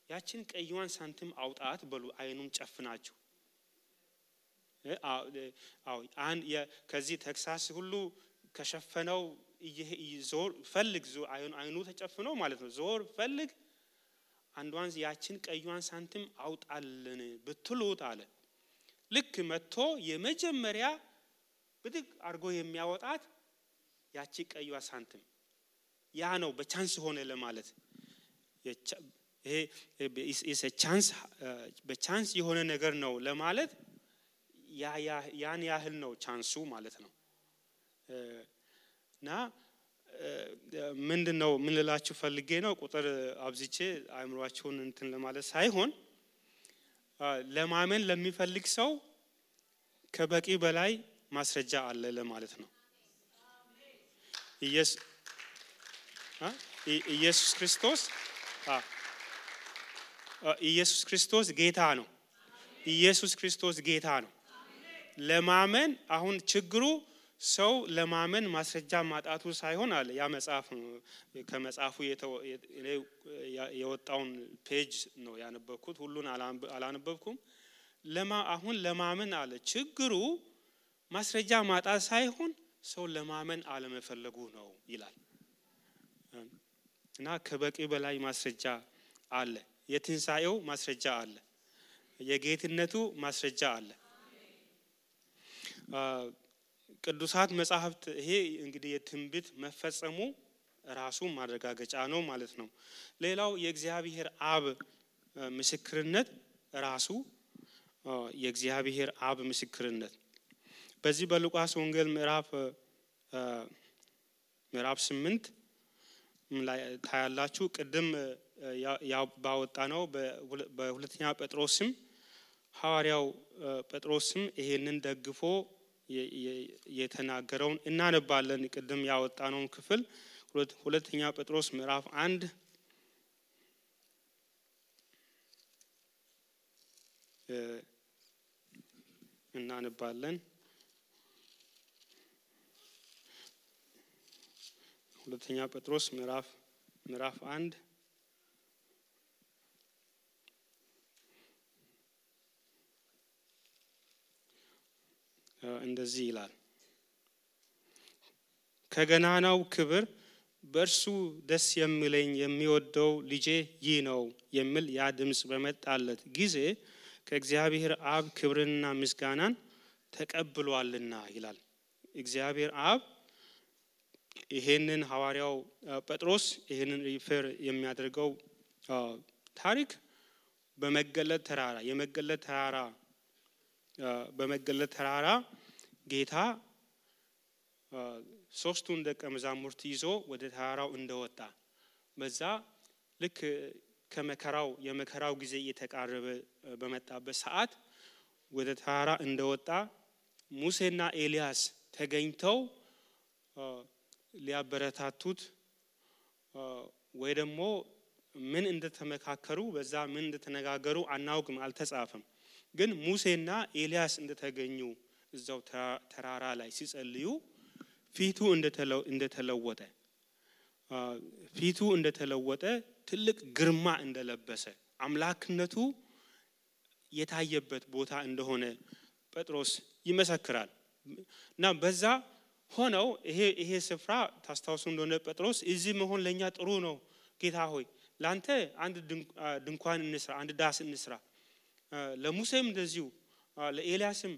ያችን ቀይዋን ሳንቲም አውጣት በሉ አይኑን ጨፍናችሁ ከዚህ ቴክሳስ ሁሉ ከሸፈነው ዞር ፈልግ አይኑ ተጨፍኖ ማለት ነው ዞር ፈልግ አንዷን ያችን ቀይዋን ሳንቲም አውጣልን ብትሉት አለ ልክ መጥቶ የመጀመሪያ ብድግ አርጎ የሚያወጣት ያቺ ቀይዋ ሳንቲም ያ ነው በቻንስ ሆነ ለማለት ይሄ በቻንስ የሆነ ነገር ነው ለማለት ያን ያህል ነው ቻንሱ ማለት ነው እና ምንድነው ምን ልላችሁ ፈልጌ ነው ቁጥር አብዝቼ አእምሮአችሁን እንትን ለማለት ሳይሆን ለማመን ለሚፈልግ ሰው ከበቂ በላይ ማስረጃ አለ ለማለት ነው። ኢየሱስ ክርስቶስ ጌታ ነው። ኢየሱስ ክርስቶስ ጌታ ነው። ለማመን አሁን ችግሩ ሰው ለማመን ማስረጃ ማጣቱ ሳይሆን አለ ያ መጽሐፍ ከመጽሐፉ የወጣውን ፔጅ ነው ያነበብኩት ሁሉን አላነበብኩም። አሁን ለማመን አለ ችግሩ ማስረጃ ማጣት ሳይሆን ሰው ለማመን አለመፈለጉ ነው ይላል። እና ከበቂ በላይ ማስረጃ አለ። የትንሳኤው ማስረጃ አለ። የጌትነቱ ማስረጃ አለ። ቅዱሳት መጻሕፍት ይሄ እንግዲህ የትንቢት መፈጸሙ ራሱ ማረጋገጫ ነው ማለት ነው። ሌላው የእግዚአብሔር አብ ምስክርነት ራሱ የእግዚአብሔር አብ ምስክርነት በዚህ በሉቃስ ወንጌል ምዕራፍ 8 ላይ ታያላችሁ። ቅድም ባወጣ ነው በሁለተኛ ጴጥሮስም ሐዋርያው ጴጥሮስም ይሄንን ደግፎ የተናገረውን እናነባለን። ቅድም ያወጣነው ክፍል ሁለተኛ ጴጥሮስ ምዕራፍ 1 እናነባለን። ሁለተኛ ጴጥሮስ ምዕራፍ 1 እንደዚህ ይላል። ከገናናው ክብር በእርሱ ደስ የሚለኝ የሚወደው ልጄ ይህ ነው የሚል ያ ድምጽ በመጣለት ጊዜ ከእግዚአብሔር አብ ክብርንና ምስጋናን ተቀብሏልና ይላል። እግዚአብሔር አብ ይሄንን ሐዋርያው ጴጥሮስ ይሄንን ሪፈር የሚያደርገው ታሪክ በመገለጥ ተራራ ጌታ ሶስቱን ደቀ መዛሙርት ይዞ ወደ ተራራው እንደወጣ በዛ ልክ የመከራው ጊዜ እየተቃረበ በመጣበት ሰዓት ወደ ተራራ እንደወጣ ሙሴና ኤልያስ ተገኝተው ሊያበረታቱት ወይ ደግሞ ምን እንደተመካከሩ በዛ ምን እንደተነጋገሩ አናውቅም አልተጻፈም። ግን ሙሴና ኤልያስ እንደተገኙ እዛው ተራራ ላይ ሲጸልዩ ፊቱ እንደተለወጠ ትልቅ ግርማ እንደለበሰ አምላክነቱ የታየበት ቦታ እንደሆነ ጴጥሮስ ይመሰክራል። እና በዛ ሆነው ይሄ ስፍራ ታስታውሱ እንደሆነ ጴጥሮስ እዚህ መሆን ለኛ ጥሩ ነው ጌታ ሆይ ላንተ አንድ ድንኳን እንስራ አንድ ዳስ እንስራ ለሙሴም እንደዚሁ ለኤልያስም